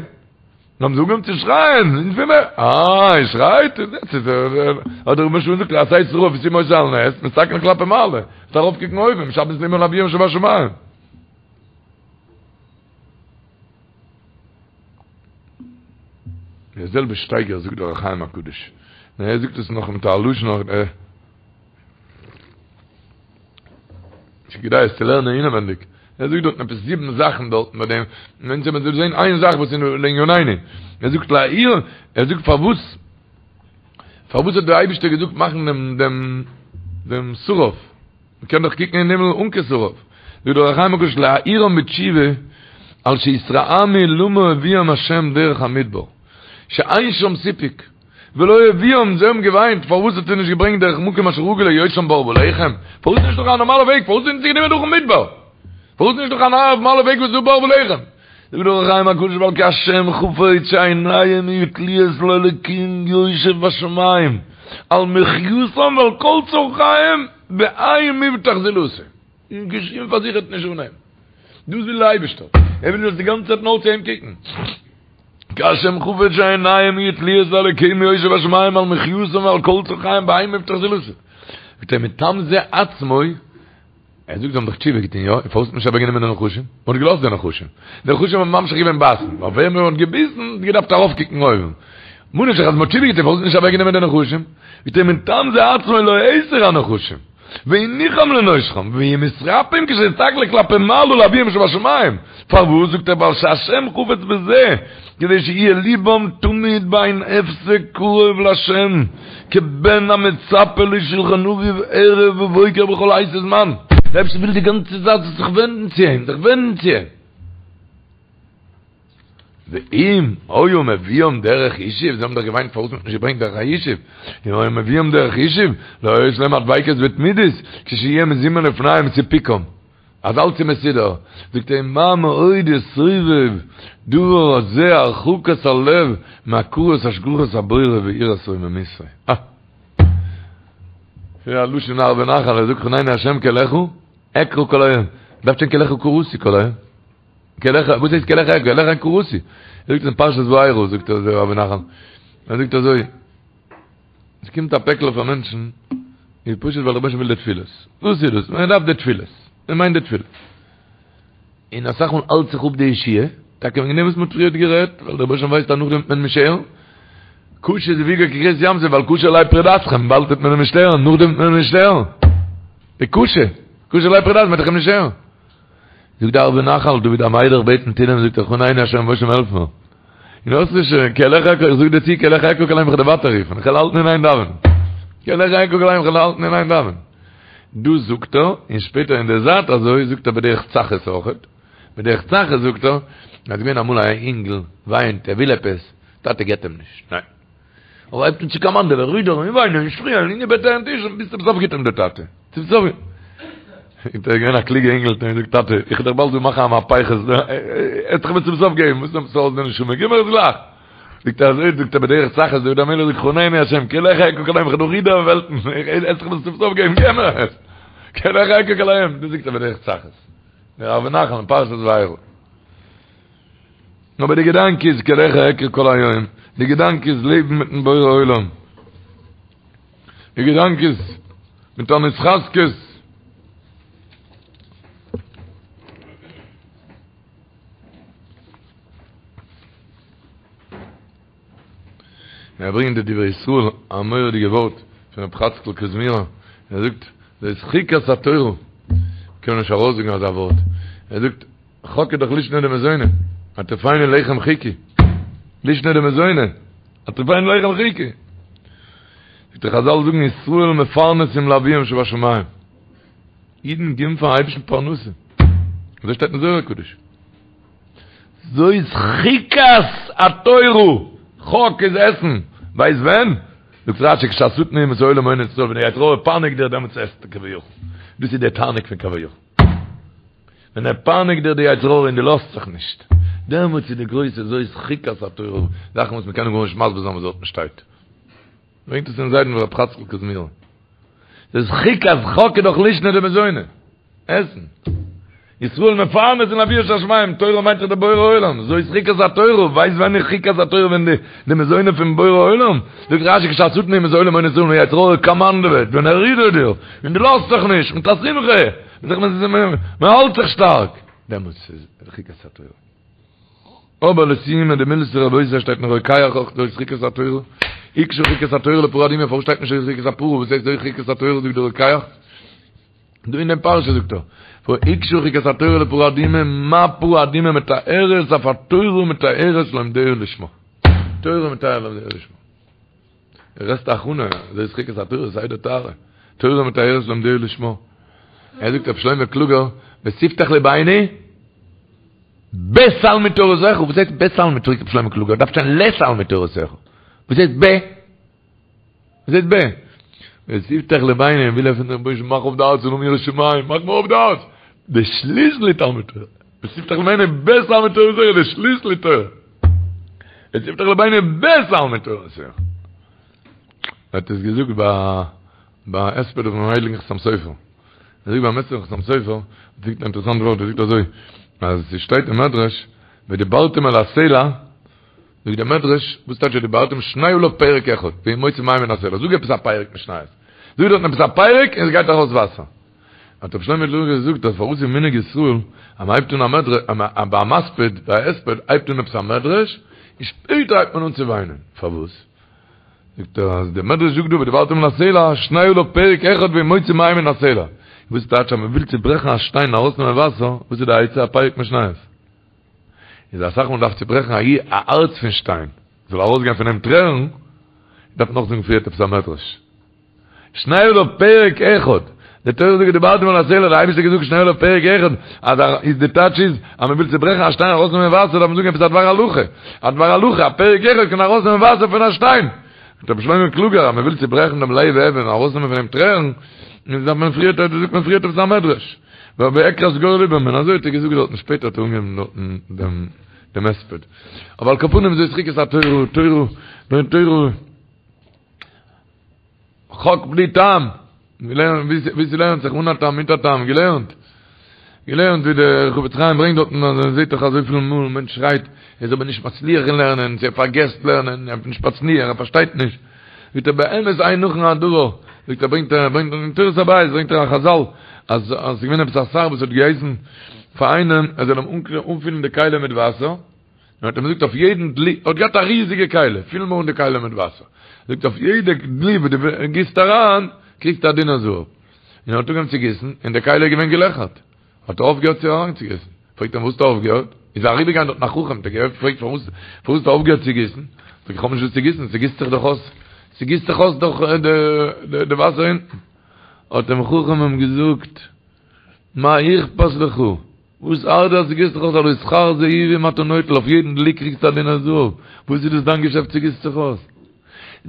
האבן זיי אנגעהויבן צו שרייען, אונז וויל מיר, אה, איר שרייט, האט דער רבונו של עולם געזאגט, עשה שרף ושים אותו על נס, מסתכל כלפי מעלה, זאלסט ארויפקוקן אויבן, משבש ליבם לאביהם שבשמים. דער זעלבע שטייגער זאגט דער אור החיים הקדוש, נאר ער זאגט עס נאך מיט א לשון נאך עה. ס'איז כדאי עס צו לערנען אינעווענדיג. ער זאגט דארטן עפעס זיבן זאכן דארטן ביי דעם, און אונז וועלן זען איין זאך וואס איז לענינינו. ער זאגט להעיר, ער זאגט פארוואס, פארוואס האט דער אייבערשטער געזאגט מאכן דעם דעם דעם שרף? מ'קען דאך קוקן אין הימל אן קיין שרף. זאגט דער אור החיים הקדוש להעירם בתשובה על שהתרעמו למה הביאם השם דרך המדבר שאין שם סיפוק ולא הביאם זיי האבן געוויינט פארוואס האט ער נישט געברענגט דרך מקום אשר רגיל להיות שם בר ולחם פארוואס נישט דורך א נארמאלע וועג פארוואס זענען זיי גענומען דורכן מדבר פארוואס נישט דורך א נארמאלע וועג וואס איז דא בר ולחם זאגט דער אור החיים הקדוש ווייל כי השם חפץ שעיניהם יהיו תלויות לאלקים יושב בשמים על מחייתם ועל כל צרכיהם באין מבטח זולתו און קיין שום פארזיכערט נישט אן אים דאס וויל דער אייבערשטער ער וויל דאס די גאנצע צייט נאר צו אים קוקן כי השם חפץ שעיניהם יהיו תלויות לאלקים יושב בשמים על מחייתם ועל כל צרכיהם באין מבטח זולתו זאגט ער מטעם זה עצמו ער זאגט זיי האבן דאך תשובה געטון יא? און פארוואס האט מען נישט אוועקגענומען די נחשים? מען האט געלאזט די נחשים. די נחשים האבן ממשיך געווען בייסן. ווייל ווער מען האט געביסן האט געדארפט ארויפקוקן אויבן. ממה נפשך אז מען האט תשובה געטון פארוואס האט מען נישט אוועקגענומען די נחשים? זאגט ער מטעם זה עצמו לא הסיר הנחשים. והניחם לנושכם ויהיו מתרפאים כשיסתכלו כלפי מעלה לאביהם שבשמים. פארוואס זאגט ער ווייל שהשם חפץ בזה כדי שיהיה ליבם תמיד באין הפסק קרוב להשם כבן המצפה לשולחן אביו ערב ובוקר בכל עת וזמן. דער אייבערשטער וויל די גאנצע צייט זאלסט זיך ווענדן צו אים, זיך ווענדן צו אים. ואם היה מביאם דרך ישוב, זיי האבן דאך געוויינט פארוואס מ'האט נישט געברענגט דרך הישוב, אם היה מביאם דרך ישוב, לא היתה להם הדביקות ותמידות, כשיהיה מזומן לפניהם סיפוקם. אז אלץ איז מסודר, זאגט ער, מה מאוד יסובב דבר הזה הרחקת הלב מהכרת השגחת הבורא ויראת רוממותו. אה! ס'איז א לשון ערבי נחל, ער זאגט חנני השם כי אליך אקרא כל היום. דארף שטיין כי אליך קראתי כל היום. כי אליך, וואס הייסט כי אליך אקרא? כי אליך קראתי. ער זאגט עס אין פרשת וארא, זאגט ער אזוי ערבי נחל. ער זאגט אזוי. עס קומט א פעקל אויף א מענטשן, איז פשוט ווייל דער רבוש"ע וויל די תפילות. וואס איז דאס? מען דארף די תפילות. מען מיינט די תפילות. און אסאך מאל האלט זיך אפ די ישועה, טאקע וועגן דעם וואס מען האט פריערט גערעדט, ווייל דער רבוש"ע ווייסט אז נאכדעם וועט מען נישט הערן. קשה זיווגו כקריעת ים סוף, ווייל קשה עלי פרידתכם, באלד וועט מען אים נישט הערן, נאכדעם וועט מען אים נישט הערן. די קשה, קשה עלי פרידתכם, מען וועט דאך אים נישט הערן. זאגט די ערבי נחל, דוד המלך בעט אין תהילים, זאגט ער, חנני השם וואס העלף מיר. און האסט נישט, כי אליך אקרא, איך זאג דיר צו, כי אליך אקרא כל היום, איך וועל דיר ווייטער רופן, איך וועל האלטן אין איין דאווענען. כי אליך אקרא כל היום, איך וועל האלטן אין איין דאווענען. דאס זאגט ער, און שפעטער אין די זייט אזוי זאגט ער בדרך צחות אויכעט, בדרך צחות זאגט ער, אז געווען אמאל א אינגל וויינט ער וויל עפעס, טאטע געט אים נישט, ניין. אבער הייבט אן צו קאמאנדעווען, רודערן און וויינען און שפרינגען און איבערדרייען טיש און ביז צום סוף גיט אים דער טאטע. צום סוף איז ער געווען א קלוגע אינגל האט אים געזאגט טאטע איך וועל דיך באלד דא מאכן א מהפכה, ער האט זיך מיר צום סוף געגעבן, וואס נעמסטו אויס די נשמה, גיב מיר עס גלייך. זאגט ער אזוי זאגט ער בדרך צחות דוד המלך זאגט חנני השם כי אליך אקרא כל היום איך וועל דא רודערן וועלטן, ער האט זיך מיר צום סוף געגעבן גיב מיר עס. כי אליך אקרא כל היום, דאס זאגט ער בדרך צחות. דער ערבי נחל אין פרשת וארא. אבער די געדאנק איז כי אליך אקרא כל היום, די געדאנק איז לעבן מיטן בורא עולם, די געדאנק איז מיט אן התחזקות, ער ברענגט די דברי ישראל א מורא'דיגע ווארט פון רב חצקל קוזמירער, ער זאגט זאת חוקת התורה, קען מען נישט ארויסזאגן אזא ווארט, ער זאגט חק איז דאך לישנא דמזונא, הטריפני לחם חוקי, לישנא דמזונא, הטריפני לחם חוקי. זאגט ער חזל זאגן ישראל מפרנסים לאביהם שבשמים. אידן גיבן פארן אייבערשטן פרנסה. אזוי שטייט אין זוהר הקדוש. זאת חוקת התורה, חק איז עסן, ווייסט ווען? זאגט רשי כשהשטן אומות העולם מונה ישראל ווען דער יצר הרע פייניגט דיר דעמאלטס עסטו כביכול. דאס איז דער תענוג פון כביכול. ווען ער פייניגט דיר די יצר הרע און דו לאזט זיך נישט, דעמאלטס איז די גרויסע זאת חוקת התורה, זאכן וואס מ'קען גארנישט מסביר זיין וואס דארטן שטייט. ברענגט עס אין זיידן רב חצקל קוזמירער. זאת חוקת חק איז דאך לישנא דמזונא, עסן. ישראל מפרנסין לאביהם שבשמים, תורה מיינט דאך די בורא עולם, זאת חוקת התורה, ווייסט ווען איז חוקת התורה ווען די די מזונות פון בורא עולם, זאגט רשי כשהשטן אומות העולם מונה ישראל ווען יצר הרע קאמאנדעוועט, ווען ער רודערט דיר, און דו לאזט זיך נישט, מיט א שמחה, מען האלט זיך שטארק, דעמאלטס איז חוקת התורה. אבער לסיומא דמילתא רבותי שטייט אין רוקח אויך זאת חוקת התורה, הוקשה חוקת התורה לפרה אדומה, פארוואס שטייט נישט זאת חוקת הפרה, וואס הייסט זאת חוקת התורה זאגט דער רוקח? דא אין דעם פרשה זאגט ער, הוקשה חוקת התורה לפרה אדומה, מה פרה אדומה מטהרת אף התורה מטהרת לומדיה לשמה. תורה מטהרת לומדיה לשמה. גרעסטע הכנה, זאת חוקת התורה, סדר טהרה. תורה מטהרת לומדיה לשמה. ער זאגט רבי שלמה קלוגער, ותפתח לבנו בתלמוד תורתך, וואס הייסט בתלמוד פרעגט רבי שלמה קלוגער, דארף שטיין לתלמוד תורתך. וואס הייסט ב? וואס הייסט ב? ותפתח לבנו, וויל ער פון דעם רבוש"ע מאך אויף די הארץ און האבן יראת שמים, מאך מיר אויף די הארץ. די שליסל איז תלמוד תורה. ותפתח לבנו בתלמוד תורתך, די שליסל איז תורה. ותפתח לבנו בתלמוד תורתך. ער האט עס געזאגט ביי ביי הספד פונעם הייליגן חתם סופר. ער זאגט ביים הספד פון חתם סופר, זאגט אן אינטערעסאנט ווארט, ער זאגט אזוי, אז ס'שטייט אין מדרש, ודברתם אל הסלע, זאגט דער מדרש, וואס טייטש ודברתם שנה עליו פרק אחד, והוא מוציא מים מן הסלע, זאג עפעס א פרק משניות, זאג דארטן עפעס א פרק און עס גייט ארויס וואסער. האט רבי שלמה קלוגער געזאגט אז פארוואס איז מנהג ישראל אז מען הייבט אן א מדרש, ביי א מספיד, ביי א הספד הייבט אן עפעס א מדרש, און שפעטער הייבט מען אן צו וויינען, פארוואס? זאגט ער אז דער מדרש זאגט דא ודברתם אל הסלע, שנה עליו פרק אחד והוא מוציא מים מן הסלע. וואס טייטש אז מען וויל צוברעכן א שטיין און ארויסנעמען וואסער, וואס איז די עצה? א פרק משניות. איז אסאך מאל דארף צוברעכן א א הארץ פון שטיין, זאל ארויסגיין פון אים טרערן, דארף מען נאכזאגן פריערט עפעס א מדרש. שנה עליו פרק אחד, די תורה זאגט ודברתם אל הסלע, די אייבערשטער האט געזאגט שנה עליו פרק אחד, אז א איז די טייטש איז אז מען וויל צוברעכן א שטיין ארויסנעמען וואסער דארף מען זאגן עפעס א דבר הלכה, א דבר הלכה, א פרק אחד קען ארויסנעמען וואסער פון א שטיין. זאגט רבי שלמה קלוגער אז מען וויל צוברעכן דעם לב אבן און ארויסנעמען פון אים טרערן, איז דארף מען פריערט זאגט מען פריערט עפעס א מדרש. ועקרת גורל לבם, און אזוי האט ער געזאגט דארטן, שפעטער האט ער אנגעהויבן דארטן דעם דעם הספד. אבער על כל פנים זאת חוקת התורה, תורה, תורה, חק בלי טעם, געלערנט ווי ס'לערנט זיך אן א טעם מיט א טעם, געלערנט, געלערנט ווי דער חפץ חיים ברענגט דארטן אז מען זעט דאך אזויפיל מאל מענטש שרייט ער איז אבער נישט מצליח אין לערנען, צו ער פארגעסט לערנען, ער איז נישט מצליח, ער פארשטייט נישט. זאגט ער באמת אין נכון הדבר, זאגט ער ברענגט ער ברענגט אין תורת הבית ברענגט ער א חזל אז אז ס'איז געווען עפעס א שר וואס האט געהייסן פאר איינעם ער זאל אים אנפילן די כלי מיט וואסער, און האט אים געזאגט אויף יעדן דלי, ער האט געהאט א ריזיגע כלי, פיל מיר אן די כלי מיט וואסער, זאגט אויף יעדע דלי וואס דו גיסט אריין קריגסטו א דינר זהב, און ער האט אנגעהויבן צו גיסן און די כלי איז געווען געלעכערט. האט ער אויפגעהערט צו אריינצוגיסן. פרעגט אים וואס האסטו אויפגעהערט? איז אריבערגעגאנגען דארטן א חכם, האט ער געפרעגט פארוואס פארוואס האסטו אויפגעהערט צו גיסן? זאגט ער איך האב נישט וואס צו גיסן, ס'גיסט זיך דאך אויס, ס'גיסט זיך אויס דאך די די וואסער אונטן. האט דעם חכם אים געזאגט, מה אכפת לך, וואס ארט דיר אז ס'גיסט זיך אויס, הלא שכר זהובים אתה נוטל, אויף יעדן דלי קריגסטו א דינר זהב, וואס איז דאס דיין געשעפט ס'גיסט זיך אויס?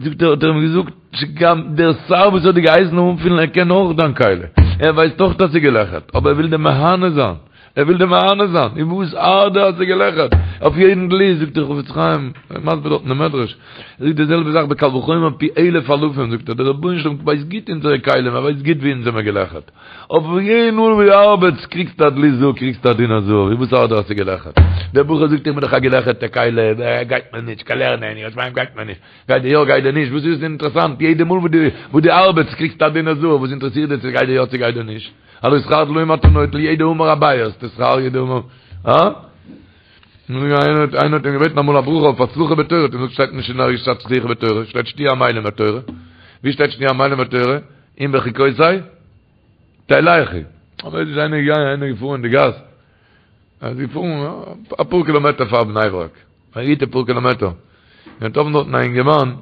זאגט ער, האט ער אים געזאגט, שגם דער שר וואס האט דיר געהייסן אנפילן ער קען אויך דיין כלי, ער ווייסט אויך אז ס'איז געלעכערט, אבער ער וויל דיר מהנה זיין, ער וויל דיר מהנה זיין, און וואס ארט דיר אז ס'איז געלעכערט, אויף יעדן דלי, זאגט דער חפץ חיים, ער מסביר דארט אין די מדרש, ער זאגט די זעלבע זאך בקל וחומר פי אלף אלפים, זאגט ער, דער רבונו של עולם ווייסט גוט אונזערע כלים, ער ווייסט גוט ווי אונז זעמער געלעכערט, אויף יעדן מאל ווי דו ארבעטסט קריגסטו א דלי זהב, קריגסטו א דינר זהב, און וואס ארט דיר אז ס'איז געלעכערט? דער בחור זאגט איך בין דאך א געלעכערטע כלי, גייט מיר נישט, קיין לערנען, יראת שמים גייט מיר נישט, גייט דיר יא גייט דיר נישט, וואס איז דאס אינטערעסאנט, יעדע מאל וואס דו ארבעטסט קריגסטו א דינר זהב, וואס אינטערעסירט דיר צו גייט דיר יא צו גייט דיר נישט, הלא שכר דליים אתה נוטל, יעדע אמר אביי האסטו שכר יעדע אמר, הא? איינער האט אים געבעטן אמאל א ברכה אויף הצלחה בתורה, האט אים געזאגט שטייט נישט אין ערגעץ הצלחה בתורה, שטייט שתהיו עמלים בתורה, ווי שטייט שתהיו עמלים בתורה? אם בחוקותי תלכו. אבער איז איינער געגאנגען איינער געפארן אין די גאס, ער איז געפארן אפאר קילאמעטער פאר בני ברק, א גוטע פאר קילאמעטער, און געטראפן דארטן א אינגערמאן,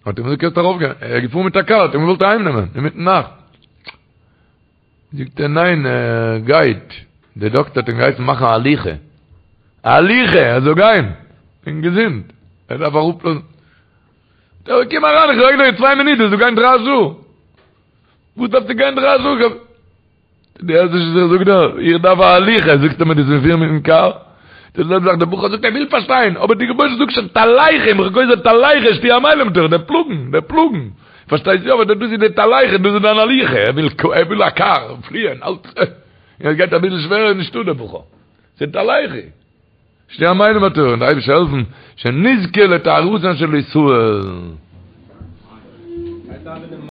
האט אים געזאגט קענסט ארויפגיין, ער איז געפארן מיט א קאר, האט אים געוואלט אהיימנעמען אינמיטן נאכט. זאגט ער ניין ער גייט, די דאקטער האט אים געהייסן מאכן א הליכה, א הליכה ער זאל גיין, און געזונט, ער דארף אראפלאזן, זאגט ער קום אריין איך זאג דיר צוויי מינוט דו זאלסט גיין דריי שעה, וואס דארפסטו גיין דריי שעה, דו הערסט נישט וואס איך זאג דיר, איך דארף א הליכה, זאגסטו מיר דו זאלסט מיר פירן מיטן קאר, די זעלבע זאך דער בחור זאגט ער וויל פארשטיין, אבער די רבוש"ע זאגט שוין תלכו אם בחוקותי תלכו שתהיו עמלים בתורה, דער פלאגן, דער פלאגן. פארשטייסט יא, אבער דאס איז די תלכו, דאס איז דיין הליכה, ער וויל ער וויל א קאר, פליען, אלץ, און עס גייט אביסל שווערער איז נישטא דער בחור, ס'איז תלכו, שתהיו עמלים בתורה, און די אייבערשטער העלפן, שנזכה לטהרתן של ישראל.